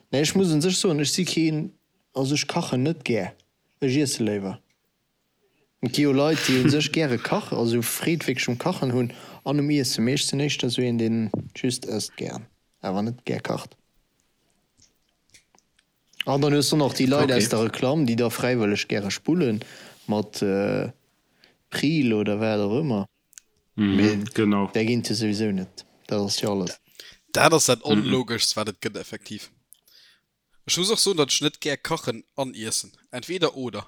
Nee, ech muss un sech soen, ech si keen, also ech kachen net gär, ech iesse léiwer. Et gi jo Leit, déi u sech gäre kachen, also Freed wierklech um Kachen hunn an um Iessen. Mee ech sinn éischter esou een, deen just ësst gären, awer net gär kacht. An dann hues du nach déi Leit aus der Reklamm, déi da fräiwëlleg gäre spullen, mat Pril oder wat och ëmmer. Mee genau. Där ginn et jo souwisou net. Dat ass jo alles. Dat ass dat Onlogeschst, wat et gëtt, effektiv. Ech muss och soen, datt ech net gär kachen an iessen. Entweder oder.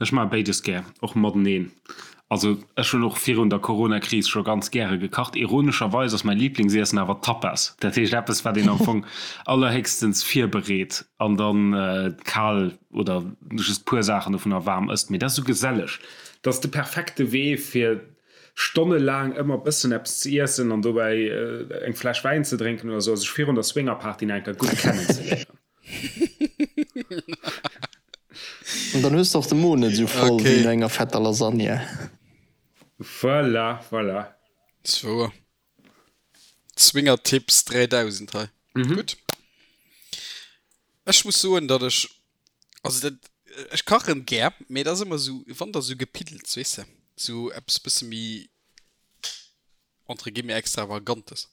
Ech maache béides gär, och mateneen. Also ech hunn och virun der Corona-Kris scho ganz gäre gekacht. Ironescherweis ass mäi Liblingsiessen awer Tapas. Dat heescht eppes, wat een am Fong allerhéchstens virbereet an dann kal oder just puer Saachen dovunner waarm ësst. Mee dat ass esou geselleg. Dat ass de perfekte Wee fir stonnelaang ëmmer bëssen eppes ze iessen an dobäi eng Fläsch Wäin ze drénken oder sou a sech virun der Swingerparty nach eng Kéier gutt kennenzeléieren. An dann hues de och de Mo net esou voll wéi no enger fetter Lasagne. Voilà, voilà. Zwou Swingertipps 3000 hei. Gutt. Ech muss soen, datt ech, also dat, ech kachen gär, mee et ass ëmmer esou, wann da sou gepiddelts, weess de, sou eppes bësse méi entre guillemets extravagantes.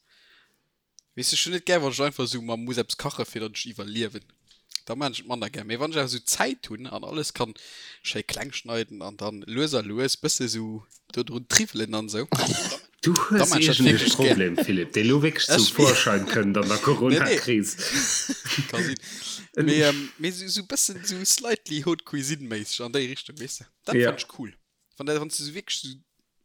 Weess ech hunn net gär wann ech einfach esou mer muss eppes kache fir datt ech iwwerliewen. Da maan ech et manner gär. Mee wann ech awer esou Zäit hunn an alles kann schéi kleng schneiden an dann lues a lues bësse sou do drun triwwelen an esou, Du da hues maan ech dat iergend e wierklech gär. Problem, Philippe, dee lo wierklech zum Vorschein kënnt an der Corona-Kris. Ka sinn. Mee mee esou esou bëssen esou slightly Haute Cuisine méisseg an déi Richtung, weess de. Dat Ja. fannt ech cool. Wann dat wann s du esou wierklech esou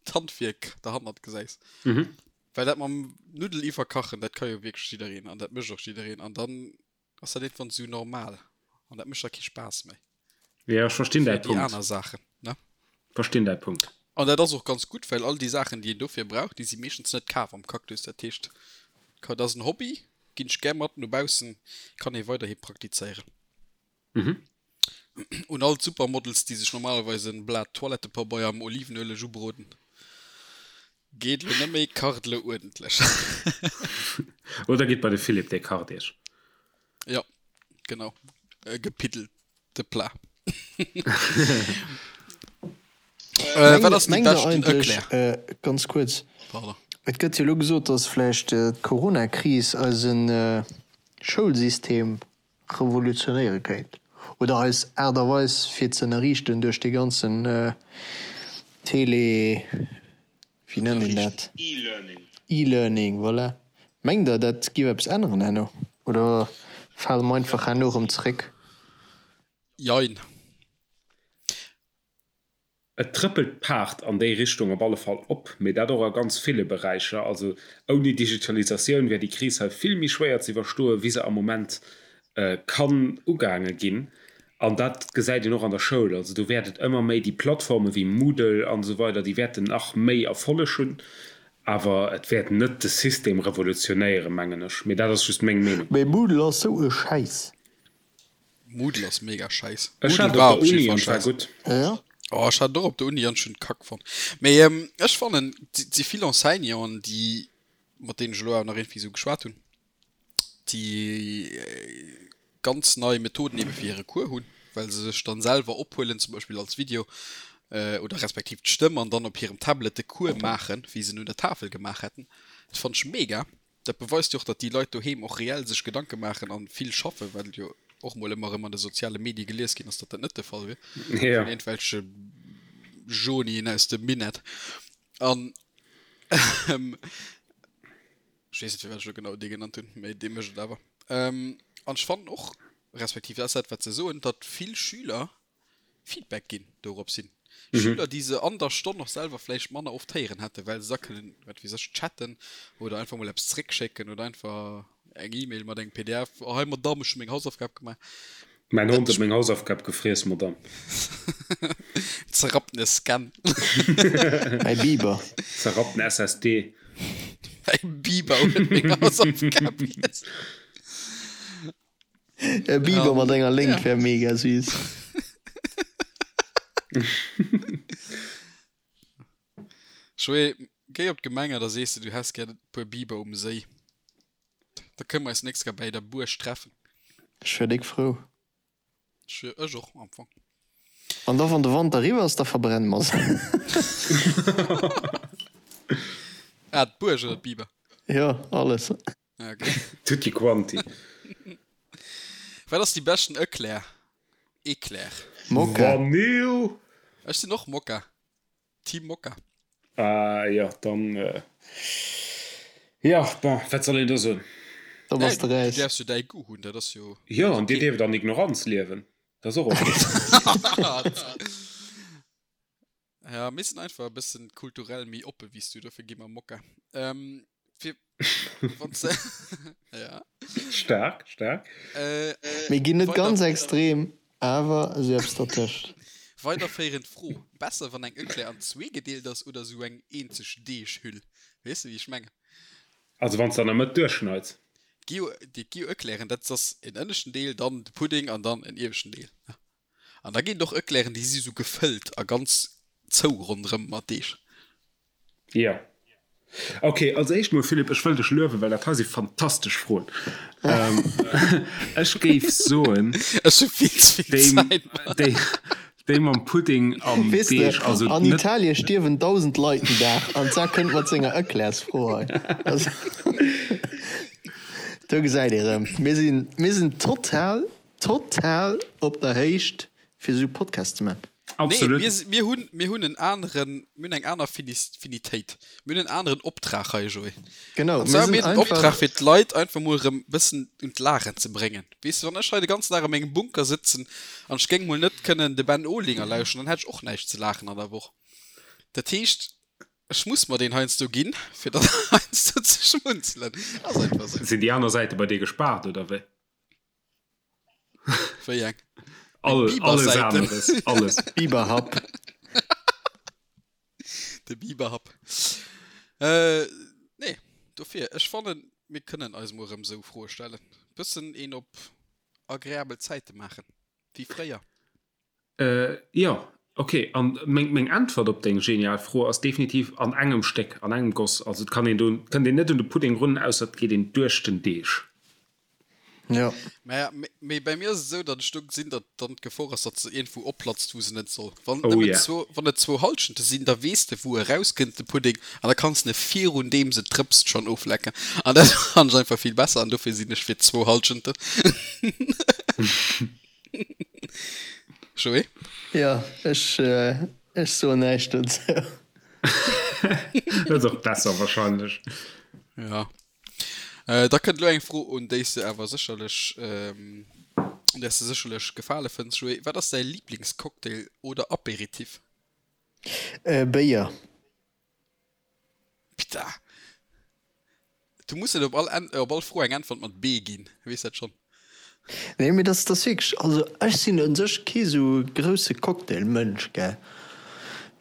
d'Handwierk derhannert gesäis. Mhm. Well dat mam Nuddel iwwerkachen, dat ka jo wierklech jiddereen an dat mécht och jiddereen an dann ass dat iergendwann esou normal an dat mécht da kee Spaass méi. Jo, ech verstinn däi Fir déi Punkt. aner Saachen, ne? Verstinn däi Punkt. An dat ass och ganz gutt, well all déi Saachen, déi een dofir brauch, déi si meeschtens net kaf am Cactus. Dat heescht, dat ass en Hobby, ginn ech gär mat no baussen, kann ee weiderhi praktizéieren. Mhm. Un all d'Supermodels, déi sech normalerweis en Blat Toilettepabeier am Olivenueleg ubroden, Geet lo net méi, kacht lo uerdentlech. Oder gitt bei de Philippe, dee kacht iech. Jo, genau, e gepiddelte Plat. Wat ass déi Mengt der beschten eigentlech, Eclair? ganz kuerz, Pardon. et gëtt jo elo gesot, datt vläicht d'Corona-Kris eise Schoulsystem revolutionéiere kéint oder eis Aart a Weis fir ze ënnerriichten duerch dee ganzen Tele, wéi nennt een dat? E-Learning, voilà. Mengt Der, dat géif eppes änneren herno oder fale mer einfach herno erëm zeréck? Jein. Et trëppelt d'Paart an déi Richtung op alle Fall op, mee dat och a ganz ville Beräicher. Also ouni Digitalisatioun wär déi Kris hei vill méi schwéier ze iwwerstoen, wéi se am Moment kann ugaange ginn. An dat gesäit een och an der Schoul. Also do wäert et ëmmer méi déi Plattforme wéi Moodle an esou weider, déi wäerten nach méi Erfolleg hunn. Awer et wäert net de System revolutionéieren, mengen ech. Mee dat ass just meng Meenung. Mee Moodle ass sou e Schäiss. Moodle ass mega scheiss. Ech Moodle hat war op op der jeden Uni Fall an et war scheiss. gutt. Ja. Oh, ech hat et och op der Uni an ech hunn et kack fonnt. Mee ähm, ech fannen, et si vill Enseignanten, déi, mat deenen ech elo awer nach iergendwéi esou geschwat hunn, déi ganz nei Methoden ebe fir hire Cours hunn, well se sech dann selwer ophuelen, zum Beispill als Video oder respektiv d'Stëmm an dann op hirem Tablet de Cours maachen, wéi se en un der Tafel gemaach hätten. Dat fannen ech mega. Dat beweist jo och, datt déi Leit doheem och reell sech Gedanke maachen an vill schaffen, well jo och mol ëmmer erëm an de soziale Medie gelies ginn ass, datt dat net de Fall wier, Ja. vun iergendwelche Johnien aus dem Minett. An ech weess net, firwat ech elo genau dee genannt hunn, mee dee mécht et awer. An ech fannen och, respektiv dat ass dat, wat se soen, datt vill Schüler Feedback ginn dorops hin. Mhm. Schüler, déi se an der Stonn och selwer vläicht manner oft héieren hätten, well se da kënnen, wat weess ech, chatten oder einfach mol eppes zréckschécken oder einfach eng E-Mail mat engem PDF, oh hei Madamm, ech hu meng Hausaufgab gemaach. Mäin Dat Hond huet meng Hausaufgab gefriess, Madamm. Zerrapptene Scan. Mäi Biber. Zerrappten SSD. Mäi Biber huet meng Hausaufgab giess. E Biber mat enger Léngt wär mega süß. Joé, géi op d'Gemeng a da sees de, du häss gär e puer Biber um Séi. Da kënne mer eis nächst Kéier bäi der Buerg treffen. Ech wär déck frou. Ech wier, ech och am Fong. An da wann de Wanter eriwwer ass, da verbrenne mer se. Ah, d'Buerg oder d'Biber? Jo, alles. Okay. Tutti quanti. Wat ass déi beschten Eclair? Eclair. Mokka. Vanille! Ech sinn och Mokka. Team Mokka. Ah jo, dann jo, bon, wat soll een do soen? Da bass de Du räis. däerfs jo däi Goût hunn, dat ass jo Jo, dat ass an dir ok. dierft an Ignoranz liewen, dat ass och ok. Ja, mir sinn einfach e bëssen kulturell méi oppe wéi s du, dofir gi mer Mokka. Ähm, fir wann s ja. Staark, staark. Äh, Mir ginn net weider ganz extrem, awer esou eppes dertëscht. Weiderféierend Fro, Besser wann eng Eclair an zwee gedeelt ass oder esou eng eenzeg Deeghüll? Weess de wéi ech mengen? Also wann s de an der Mëtt duerchschneids. Gi jo, déi gi jo Eclairen, dat ass en ënneschten Deel, dann de Pudding an dann en ieweschten Deel. An da ginn et och Eclairen, déi si sou gefëllt a ganz zou ronderëm mat Deeg. Jo. Ok, als éischt mol, Philippe, ech wëll dech luewen, well dat hei si fantastesch Froen. Ech géif soen, Ech hu vill ze vill Zäit, Mann. déi, déi mam Pudding am Weess de, Deeg, also an net. Italie stierwen 1.000 Leit den Dag an d'Sa kënnt mat senger Eclairsfro hei. Also, do gesäit ee rëm, mir sinn, mir sinn total Total op der Héicht fir sou Podcast ze man. Absolut. Nee, mir, mir hunn, mir hunn en aneren, mir hunn eng aner Finis, Finitéit. Mir hunn en aneren Optrag hei, Joé. Genau, An mir zwar sinn mir hunn den einfach. Optrag fir d'Leit einfach mol erëm bëssen un d'Laachen ze bréngen. Weess de, wann ech hei de ganzen Dag a mengem Bunker sëtzen an ech géing mol net kënnen de Ben Olinger lauschteren, dann hätt ech och näischt ze laachen an der Woch. Dat heescht, ech muss mer deen heiansdo ginn, fir dann heiansdo ze schmunzelen. Ass einfach sou. Sinn déi aner Säite bei dir gespaart, oder wéi? Wéi eng? All, alles aneres, alles. Biberhapp. De Biberhapp. Äh, nee, dofir, ech fannen, mir kënnen eis mol erëm esou Froe stellen. Bëssen een op agreabel Zäite maachen, wéi fréier. Äh, jo, ok. An meng, meng Äntwert op deng genial Fro ass definitiv an engem Stéck, an engem Goss. Also et kann een do, kënnt een net un de Pudding run, ausser et geet een duerch den Deeg. Jo. Mä, mee bei mir ass et esou, datt ech do gesinn, datt dann d'Gefor ass, datt se iergendwou opplatzt, wou se net soll. Wann et Oh nëmmen yeah. zwou, wann et zwou Hallschente sinn, da weess de, wou e rauskënnt, de Pudding, an da kanns de e virun deem se drëpst schonn oflecken. An dat fannen ech einfach vill besser an dofir sinn ech fir zwou Hallschenten. Joé? Jo, ech, ech soen näischt dozou. Dat ass och besser wahrscheinlech. Ja. Äh, da kënnt elo eng Fro, un déi s de awer sécherlech, ähm, un där s de sécherlech Gefale fënns, Joé. Wat ass däi Liblingscocktail oder Aperitif? Äh, Béier. Pita! Du muss net op all, op all Fro eng Äntwert mat B ginn, weess dat schonn. Nee, mee dat ass wierklech, also ech sinn un sech kee sou grousse Cocktail-Mënsch, gell,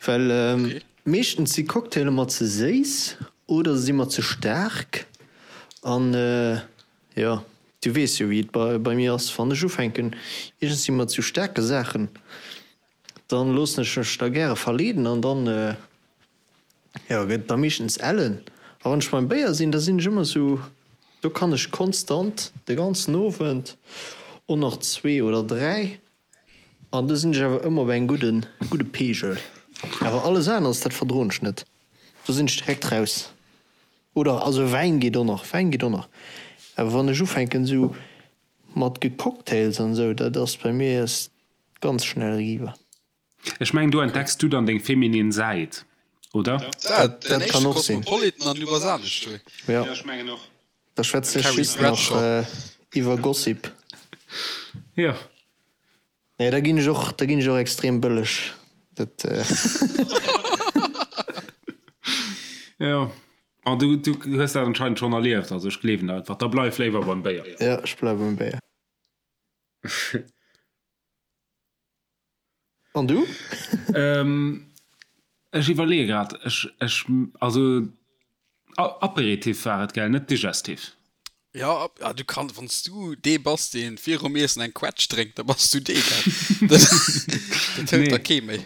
well meeschtens si Cocktailer mer ze séiss oder se si mer ze staark an jo, du weess jo wéi et bei mir ass, wann ech ufänken iergendwéi mat sou staarke Saachen, dann loossen ech mech da gäre verleeden an dann Jo, gëtt da meeschtens ellen. A wann ech beim Béier sinn, da sinn ech ëmmer sou, do kann ech konstant de ganzen Owend och nach zwee oder dräi an do sinn ech awer ëmmer op engem gudden, gudde Peegel. Awer alles aneres, dat verdroen ech net, do sinn ech direkt raus. Oder also Wäin geet och nach, Wäin geet och nach, awer wann ech ufänken sou mat Gecocktails an esou, dat ass bei mir ganz schnell eriwwer. Ech mengen do entdecks du dann deng feminin Säit, oder? Dat, Dat kann och sinn. Kosmopolitan an du bass anescht, Joé. Jo. Da schwätzen ech just nach iwwer Gossip. Jo. Nee, da ginn ech och, da ginn ech och extrem bëlleg. Dat. Jo. An du, du hues dat anscheinend schonn erlieft, also ech gleewen der einfach. Da bleif léiwer beim Béier. Jo, ech bleiwe beim Béier. An du? Ech iwwerleeë grad. Ech, ech, also Aperitif war et, gell, net Digestif? Jo, ah, du kann, wann s du dee bass, dee virum Iessen eng Quetsch drénkt, da bass du dee, gell? Dat, dat hëlt der kee méi.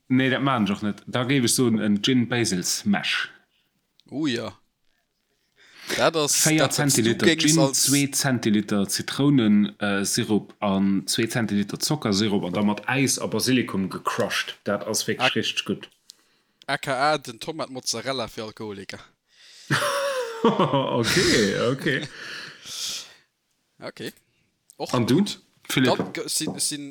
Nee, dat maachen ech och net. Da géif ech soen en Gin Basil Smash. Oh jo. Dat ass 4 dat, wat s du Zentiliter géings Gin, als. 2 Zentiliter Zitrounensirup an 2 Zentiliter Zockersirup an da mat Äis a Basilikum gecrushed. Dat ass wierklech richteg gutt. Aka den Tomat Mozzarella fir Alkoholiker. Ok, ok. Ok. Och An du, gutt. Philippe. Dann, ech sinn, ech sinn,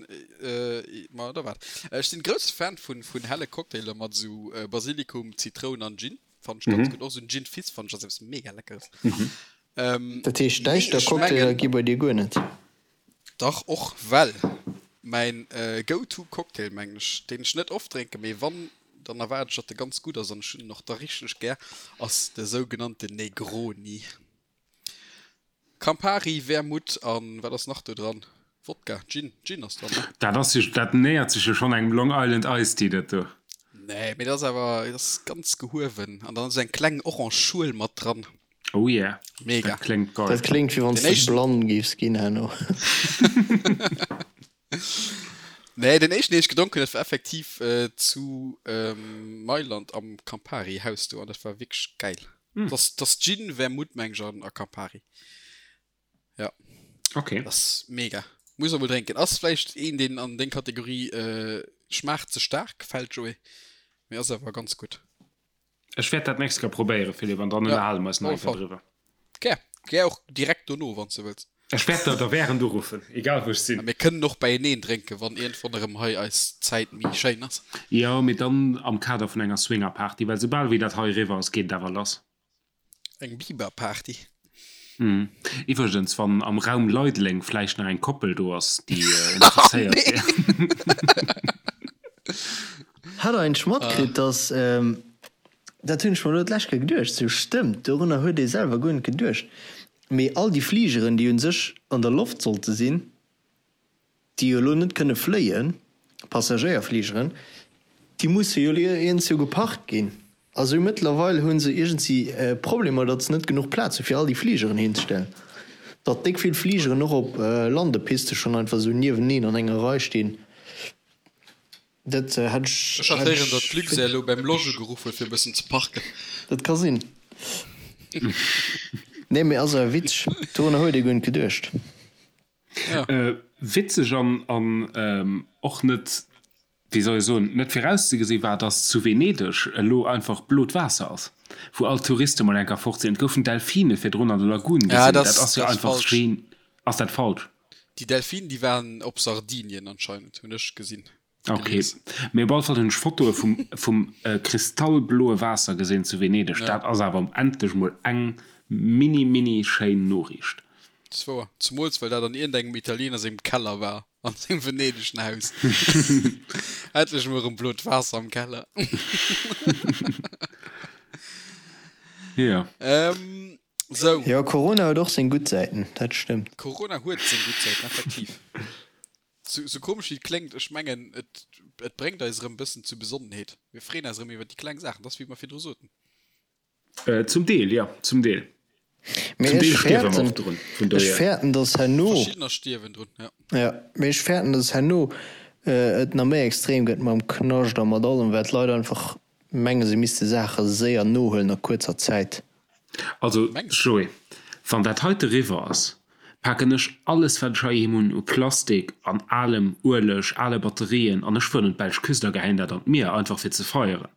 ma da waart. Ech sinn grousse Fan vun, vun helle Cocktailer mat esou Basilikum, Zitroun an Gin. Fannen ech ganz gutt. Och esou en Gin Fizz fannen ech ass eppes mega Leckeres. Dat heescht, Mee däischter ech Cocktailer mengen. gi bei dir guer net? Dach och, well mäin Go-to Cocktail, mengen ech, deen ech net oft drénken, mee wann, dann erwaarden ech, datt e ganz gutt ass an ech hunn en och da richteg gär, ass de sougenannten Negroni. Campari, Vermouth an wat ass nach do dran? Wodka? Gin? Gin ass dran, ne? Dat ass jo, dat nähert sech jo schonn engem Long Island Iced Tea, dat do. Nee, mee dat ass awer, dat ass ganz gehuewen an dann ass eng kleng orange Schuel mat dran. Oh yeah, Mega. dat kléngt geil. Dat kléngt wéi wann s Den de éischten. blann géifs ginn herno. Nee, den éischten deen ech gedronk hunn, dat war effektiv zu Mailand am Campari Haus do an dat war wierklech gäil. Dat ass Gin, Vermouth meng ech an a Campari. Ja. Okay. Dat ass mega. Muss emol drénken. Ass vläicht een deen an deng Kategorie schmaacht ze staark fält Joé, mee ass awer ganz gutt. Ech wäert dat nächst Kéier probéieren, Philippe, an dann Ja, ënnerhale mer eis nach op eng alle Kéier Fall. driwwer. Gär. Gär och direkt dono, wann s de wëlls. Ech wäert der da während uruffen, egal wou ech A sinn. mir kënnen och beieneen drénken, wann iergendwann erëm hei eis Zäit méi schéin ass. Jo, mee dann am Kader vun enger Swingerparty, well soubal wéi dat hei eriwwer ass, geet et awer lass. Eng Biberparty. Iwwregens, wann am Raum Leideleng vläicht nach eng Koppel do ass, déi interesséiert wier. Hat der eigentlech matkritt, dass, dat hunn ech mer elo d'lescht Kéier geduecht, sou stëmmt, dorunner huet ee selwer guer net geduecht, mee all déi Fligeren, déi un sech an der Loft sollte sinn, déi jo elo net kënne fléien, Passagéierfligeren, déi musse jo iergendsou geparkt ginn. A sou mëttlerweil hu se iergendsi Problemer, datt se net genuch Plaz hu fir all déi Fligeren hinzestellen. Datt déck vill Fligeren och op Landepiste schonn einfach esou nieweneen an enger Rei stinn, dat hätt ech. Ech hat héieren, datt d'Luxair elo beim Lodge ugeruff huet fir e bëssen ze parken. Dat ka sinn. Nee, mee ass awer witzeg. Dorunner huet ee guer net geduecht. Ja. Witzeg an an och net, wéi soll ech soen, net virauszegesi war, dass zu Venedeg elo einfach blot Waasser ass, wou all d'Touriste mol enker fort sinn. Et goufen Delfine virdrun an der Lagun gesinn. Ja, Dat dat ass jo ass einfach falsch. gen. Ass dat falsch? Déi Delfinen, déi waren op Sardinien anscheinend, hunn ech gesinn. Ok, Gelies. mee op alle Fall hunn ech Fotoe vum vum kristallbloe Waasser gesinn zu Venedeg. Ja. Dat ass awer endlech mol eng mini mini schéin Noriicht. Dat ass wouer. Zemools well dat an iergendengem Italiener sengem Keller war, an sengem venedeschen Haus. Endlech mol erëm blot Waasser am Keller. Jo. Ähm, sou. Jo, Corona huet och seng gutt Säiten, dat stëmmt. Corona huet seng gutt Säiten, effektiv. Sou komesch wéi et kléngt, ech mengen, et, et bréngt eis erëm e bëssen zu Besonnenheet. Mir freeën eis erëm iwwer déi kleng Saachen. Dat ass, wéi mer virdru soten. Zum Deel, jo, zum Deel. Mee Zum Deel ech stierwe mer fäerten, och drun, vun ech dohier. fäerten, dass herno. Verschiddener stierwen drun, jo. Jo, mee ech fäerten, dass herno et nach méi extrem gëtt mam Knascht a mat allem, well d'Leit einfach mengen, se misste Saache séier nohuelen a kuerzer Zäit. Also Mengs du? Joé, wann dat heite riwwer ass, paken ech alles wat ech heiheem hunn u Plastik an alem Ueleg, ale Batterien an ech fueren un d'belsch Küst a geheien dat an d'Mier, einfach fir ze feieren.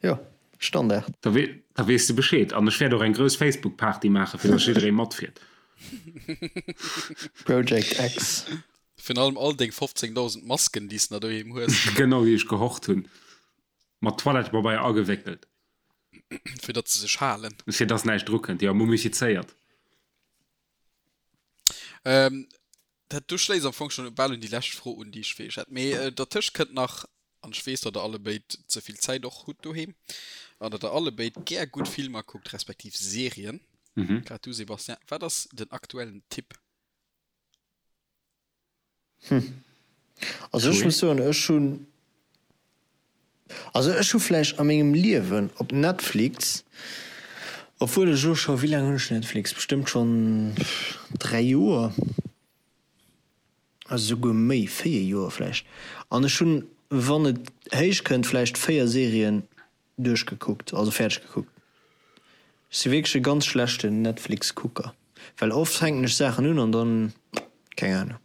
Jo, Standard. Da da weess de Bescheed. An ech wäert och eng grouss Facebook-Party maachen, fir datt jidderee matfiert. Project X. Virun allem all deng 15.000 Masken, déi s de nach doheem hues. Genau, déi ech gehort hunn. Mat Toilettepabeier agewéckelt. Fir datt se sech halen. Fir datt näischt drukënnt, jo, mumifizéiert. Ähm, dat do schléisst am Fong schonn bal un déi lescht Fro un, déi ech fir iech hätt. Mee äh, dertëscht kënnt nach, an ech weess, datt der allebéid ze vill Zäit och hutt doheem, an datt der allebéid gär gutt Filmer kuckt, respektiv Serien. Mhm. Grad du, Sébastien, wat ass den aktuellen Tipp? Hm. Also ech Joé? muss soen, ech hunn, also ech hu vläicht a mengem Liewen op Netflix, obwuel ech elo scho, wéi laang hunn ech Netflix, bestëmmt schonn 3 Joer, also souguer méi, 4 Joer vläicht, an ech hunn, wann et héich kënnt, vläicht 4 Serien Duerchgekuckt, also fäerdeg gekuckt. Ech si wierklech e ganz schlechten Netflix Kucker, well oft fänken ech Saachen un an dann, keng Ahnung.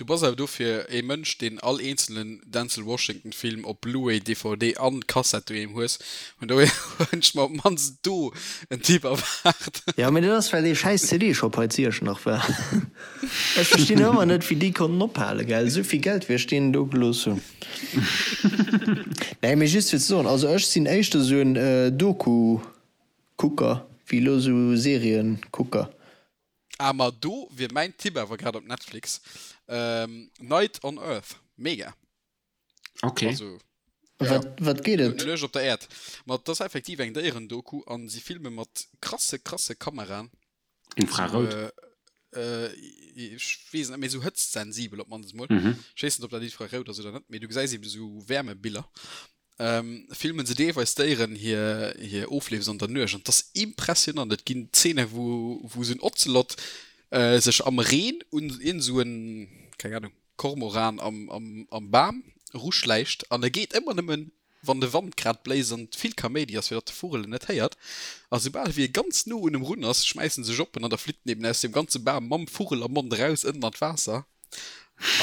Du bass awer dofir ee Mënsch, deen all eenzelen Denzel Washington Film op Blu-ray, DVD an Kassett doheem hues. Vun dohier hunn ech mer op d'mannst do en Tipp erwaart. Jo, mee dat ass well dee schäiss CD-Shop hei zu Iechternach war. Ech verstinn ëmmer net wéi déi konnten ophalen, gell, esou vill Geld wéi ech deenen do gelooss hunn. Nee, mee just fir ze soen, also ech sinn éischter esou en Doku-Kucker wéi elo esou Serien-Kucker. Ah ma do wier mäin Tipp awer grad op Netflix, Night on Earth, mega. Ok. Also, ja. Wat, wat geet et? Nuecht op der Äerd. Ma et ass effektiv eng Déierendoku an si filme mat krasse, krasse Kameraen. Infrarout? Sou, ech weess net, mee sou hëtztsensibel op d'mannst emol. Ech weess net, ob dat infrarout ass oder net, mee du gesäis eben sou Wärmebiller. Filmen se deelweis Déieren hir hir Ofleefs an der Nuecht an 't ass impressionant. Et ginn Zeene wou wou esou en Ozelot sech am Reen un iergend esou en, keng Ahnung, Kormoran am am am Bam eruschläicht an e geet ëmmer nëmmen wann de Wand grad bléist an vill Kaméidi ass fir datt de Vugel en net héiert. A soubal wéi e ganz no un em run ass, schmäiss en sech op en an da flitt en eben aus deem ganze Bam mam Vugel am Mond eraus ënnen an d'Waasser.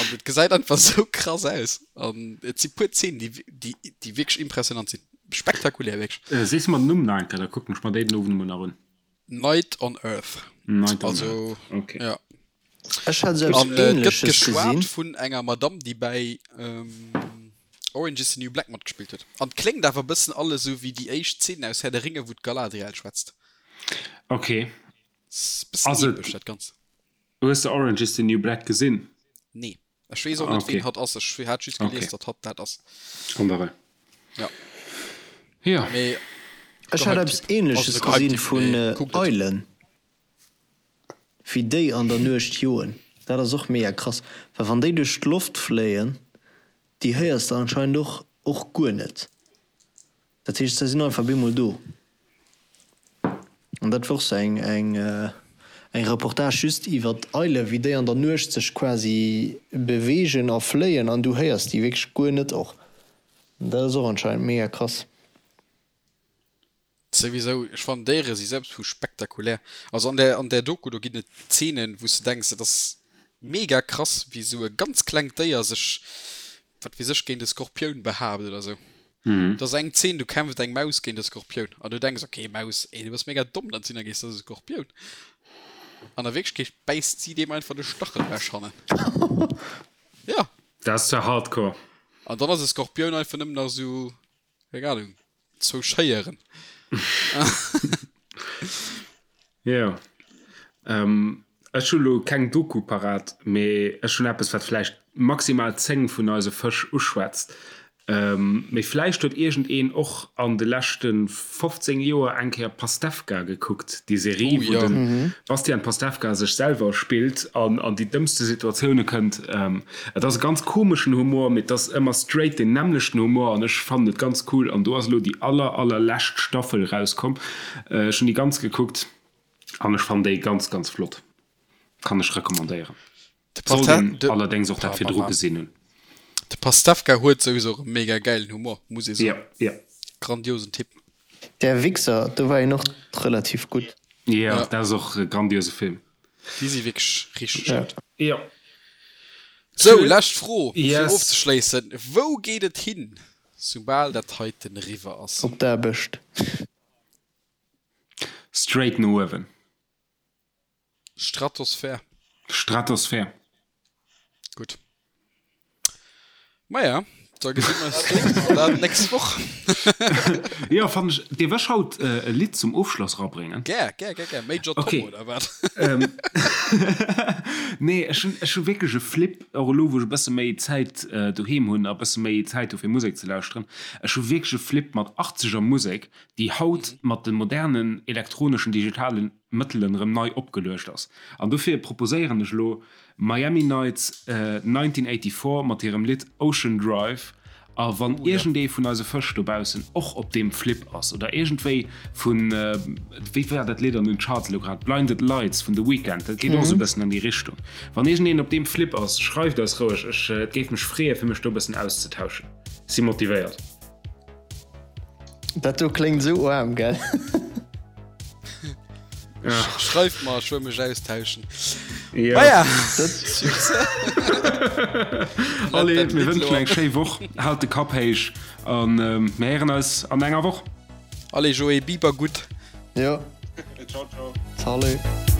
An et gesäit einfach sou krass aus. An et si puer Zeenen, déi, déi, déi wierklech impressionant sinn. Spektakulär, wierklech. Äh, sees mer den Numm nach eng Kéier, da kucken ech mer déi den Owend emol nach un. Night on Earth. Night on Also, Earth, okay. ja. Ech hat esou eppes An et gëtt Ähnleches geschwat gesinn. vun enger Madamm, déi bäi Orange is the New Black matgespillt huet. An et kléngt awer e bëssen alles esou wéi déi éischt Zeen aus Herr der Ringe, wou d'Galadriel schwätzt. Okay. Ass e bëssen Ass et. epesch, dat Ganzt. Hues de Orange is the New Black gesinn? Nee. Ech weess och net ween hatt ass. Ech hat just gelies datt hatt dat ass. An der Rei. Ja. Ja. Mee Ech hat eppes ähnleches gesinn vun Eilen, wéi déi an der Nuecht joen. Dat ass och mega krass, well wann déi duerch d'Loft fléien, déi héiers de anscheinend och och guer net. Dat heescht, se sinn einfach bemol do. An dat wor sou eng eng eng Reportage just iwwer d'Eile wéi déi an der Nuecht sech quasi beweegen a fléien an du héiers déi wierklech guer net och. Dat ass och anscheinend mega krass. Souwisou, ech fannen Déiere si selbst vu spektakulär. Also an där an där Doku do ginn et Zeenen wou s de denks et ass mega krass wéi sou e ganz klengt Déier sech wat weess ech géint e Skorpioun behaapt oder sou. Et ass eng Zeen do kämpft eng Maus géint e Skorpioun an du denks ok Maus ey du bass mega domm dat sinn da gees dat ass e Skorpioun an a Wierklechkeet bäisst si deem einfach de Stachel ewech hannen. Ja. Dat ass zwar hardcore. An dann ass e Skorpioun einfach nëmmen nach sou keng Ahnung zwou Schéieren. Jo. Ech hu lo keng Doku parat, mee ech hunn eppes, wat vläicht maximal 10 vun eise Fësch uschwätzt. Mee vläicht huet iergendeen och an de leschte 15 Joer eng Kéier Pastewka gekuckt, déi Serie, Oh wou jo. de Bastian Pastewka sech selwer spillt an an déi dëmmste Situatioune kënnt. Et ass e ganz komeschen Humor, mee et ass ëmmer straight deen nämmlechten Humor an ech fannen et ganz cool. An do ass elo déi aller, allerlescht Staffel erauskomm. Ech hunn déi ganz gekuckt. An ech fannen déi ganz ganz flott. Kann ech recommandéieren. Sollt een allerdéngs och dat virdru gesinn hunn. De Pastewka huet souwisou och e mega gäilen Humor, muss ee soen. Jo, jo. Grandiosen Typ. Der Wichser, do war een och relativ gutt. Jo, dat ass och e grandiose Film. Déi si wierklech richteg gutt. Jo. Sou, lescht Fro fir Yes. ofzeschléissen, Wou geet et hin, soubal dat heiten eriwwer ass? Op d'Aarbecht. Straight no uewen. Stratosphär. Stratosphär. Gutt. Maja, da gesi mer eis do an dat nächst Woch. Jo, fannen ech. Dierf ech haut e Lidd zum Ofschloss rabréngen? Gär, gär, gär, gär. Major Tom Okay. oder wat? Nee, ech hunn, ech hu wierklech e Flip, och elo wou ech e bësse méi Zäit doheem hunn a bësse méi Zäit hu fir Musek ze lauschteren. Ech hu wierklech e Flip mat achtzeger Musek, déi haut mat de modernen elektroneschen, digitalen Mëttelen erëm nei opgeluecht ass. An dofir proposéieren ech elo Miami Nights 1984 mat hirem Lidd Ocean Drive. A wann iergendee vun eise Fësch dobaussen och op deem Flip ass oder iergendwéi vun, wéi war dat Lidd an den Charts elo grad, Blinded Lights vun The Weeknd, dat geet och esou e bëssen an déi Richtung. Wann iergendeen op deem Flip ass, schreift eis roueg, ech, et géif mech freeë fir mech do e bëssen auszetauschen. Si motivéiert. Dat do kléngt esou oarm, gell? Schreift mer, ech wëll mech austauschen. Maja. Allez, mir wënschen eng schéi Woch. Haalt de Kapp héich an mir héieren eis an enger Woch. Allez Joé, Biber gutt. Jo. Ciao, ciao. Salut.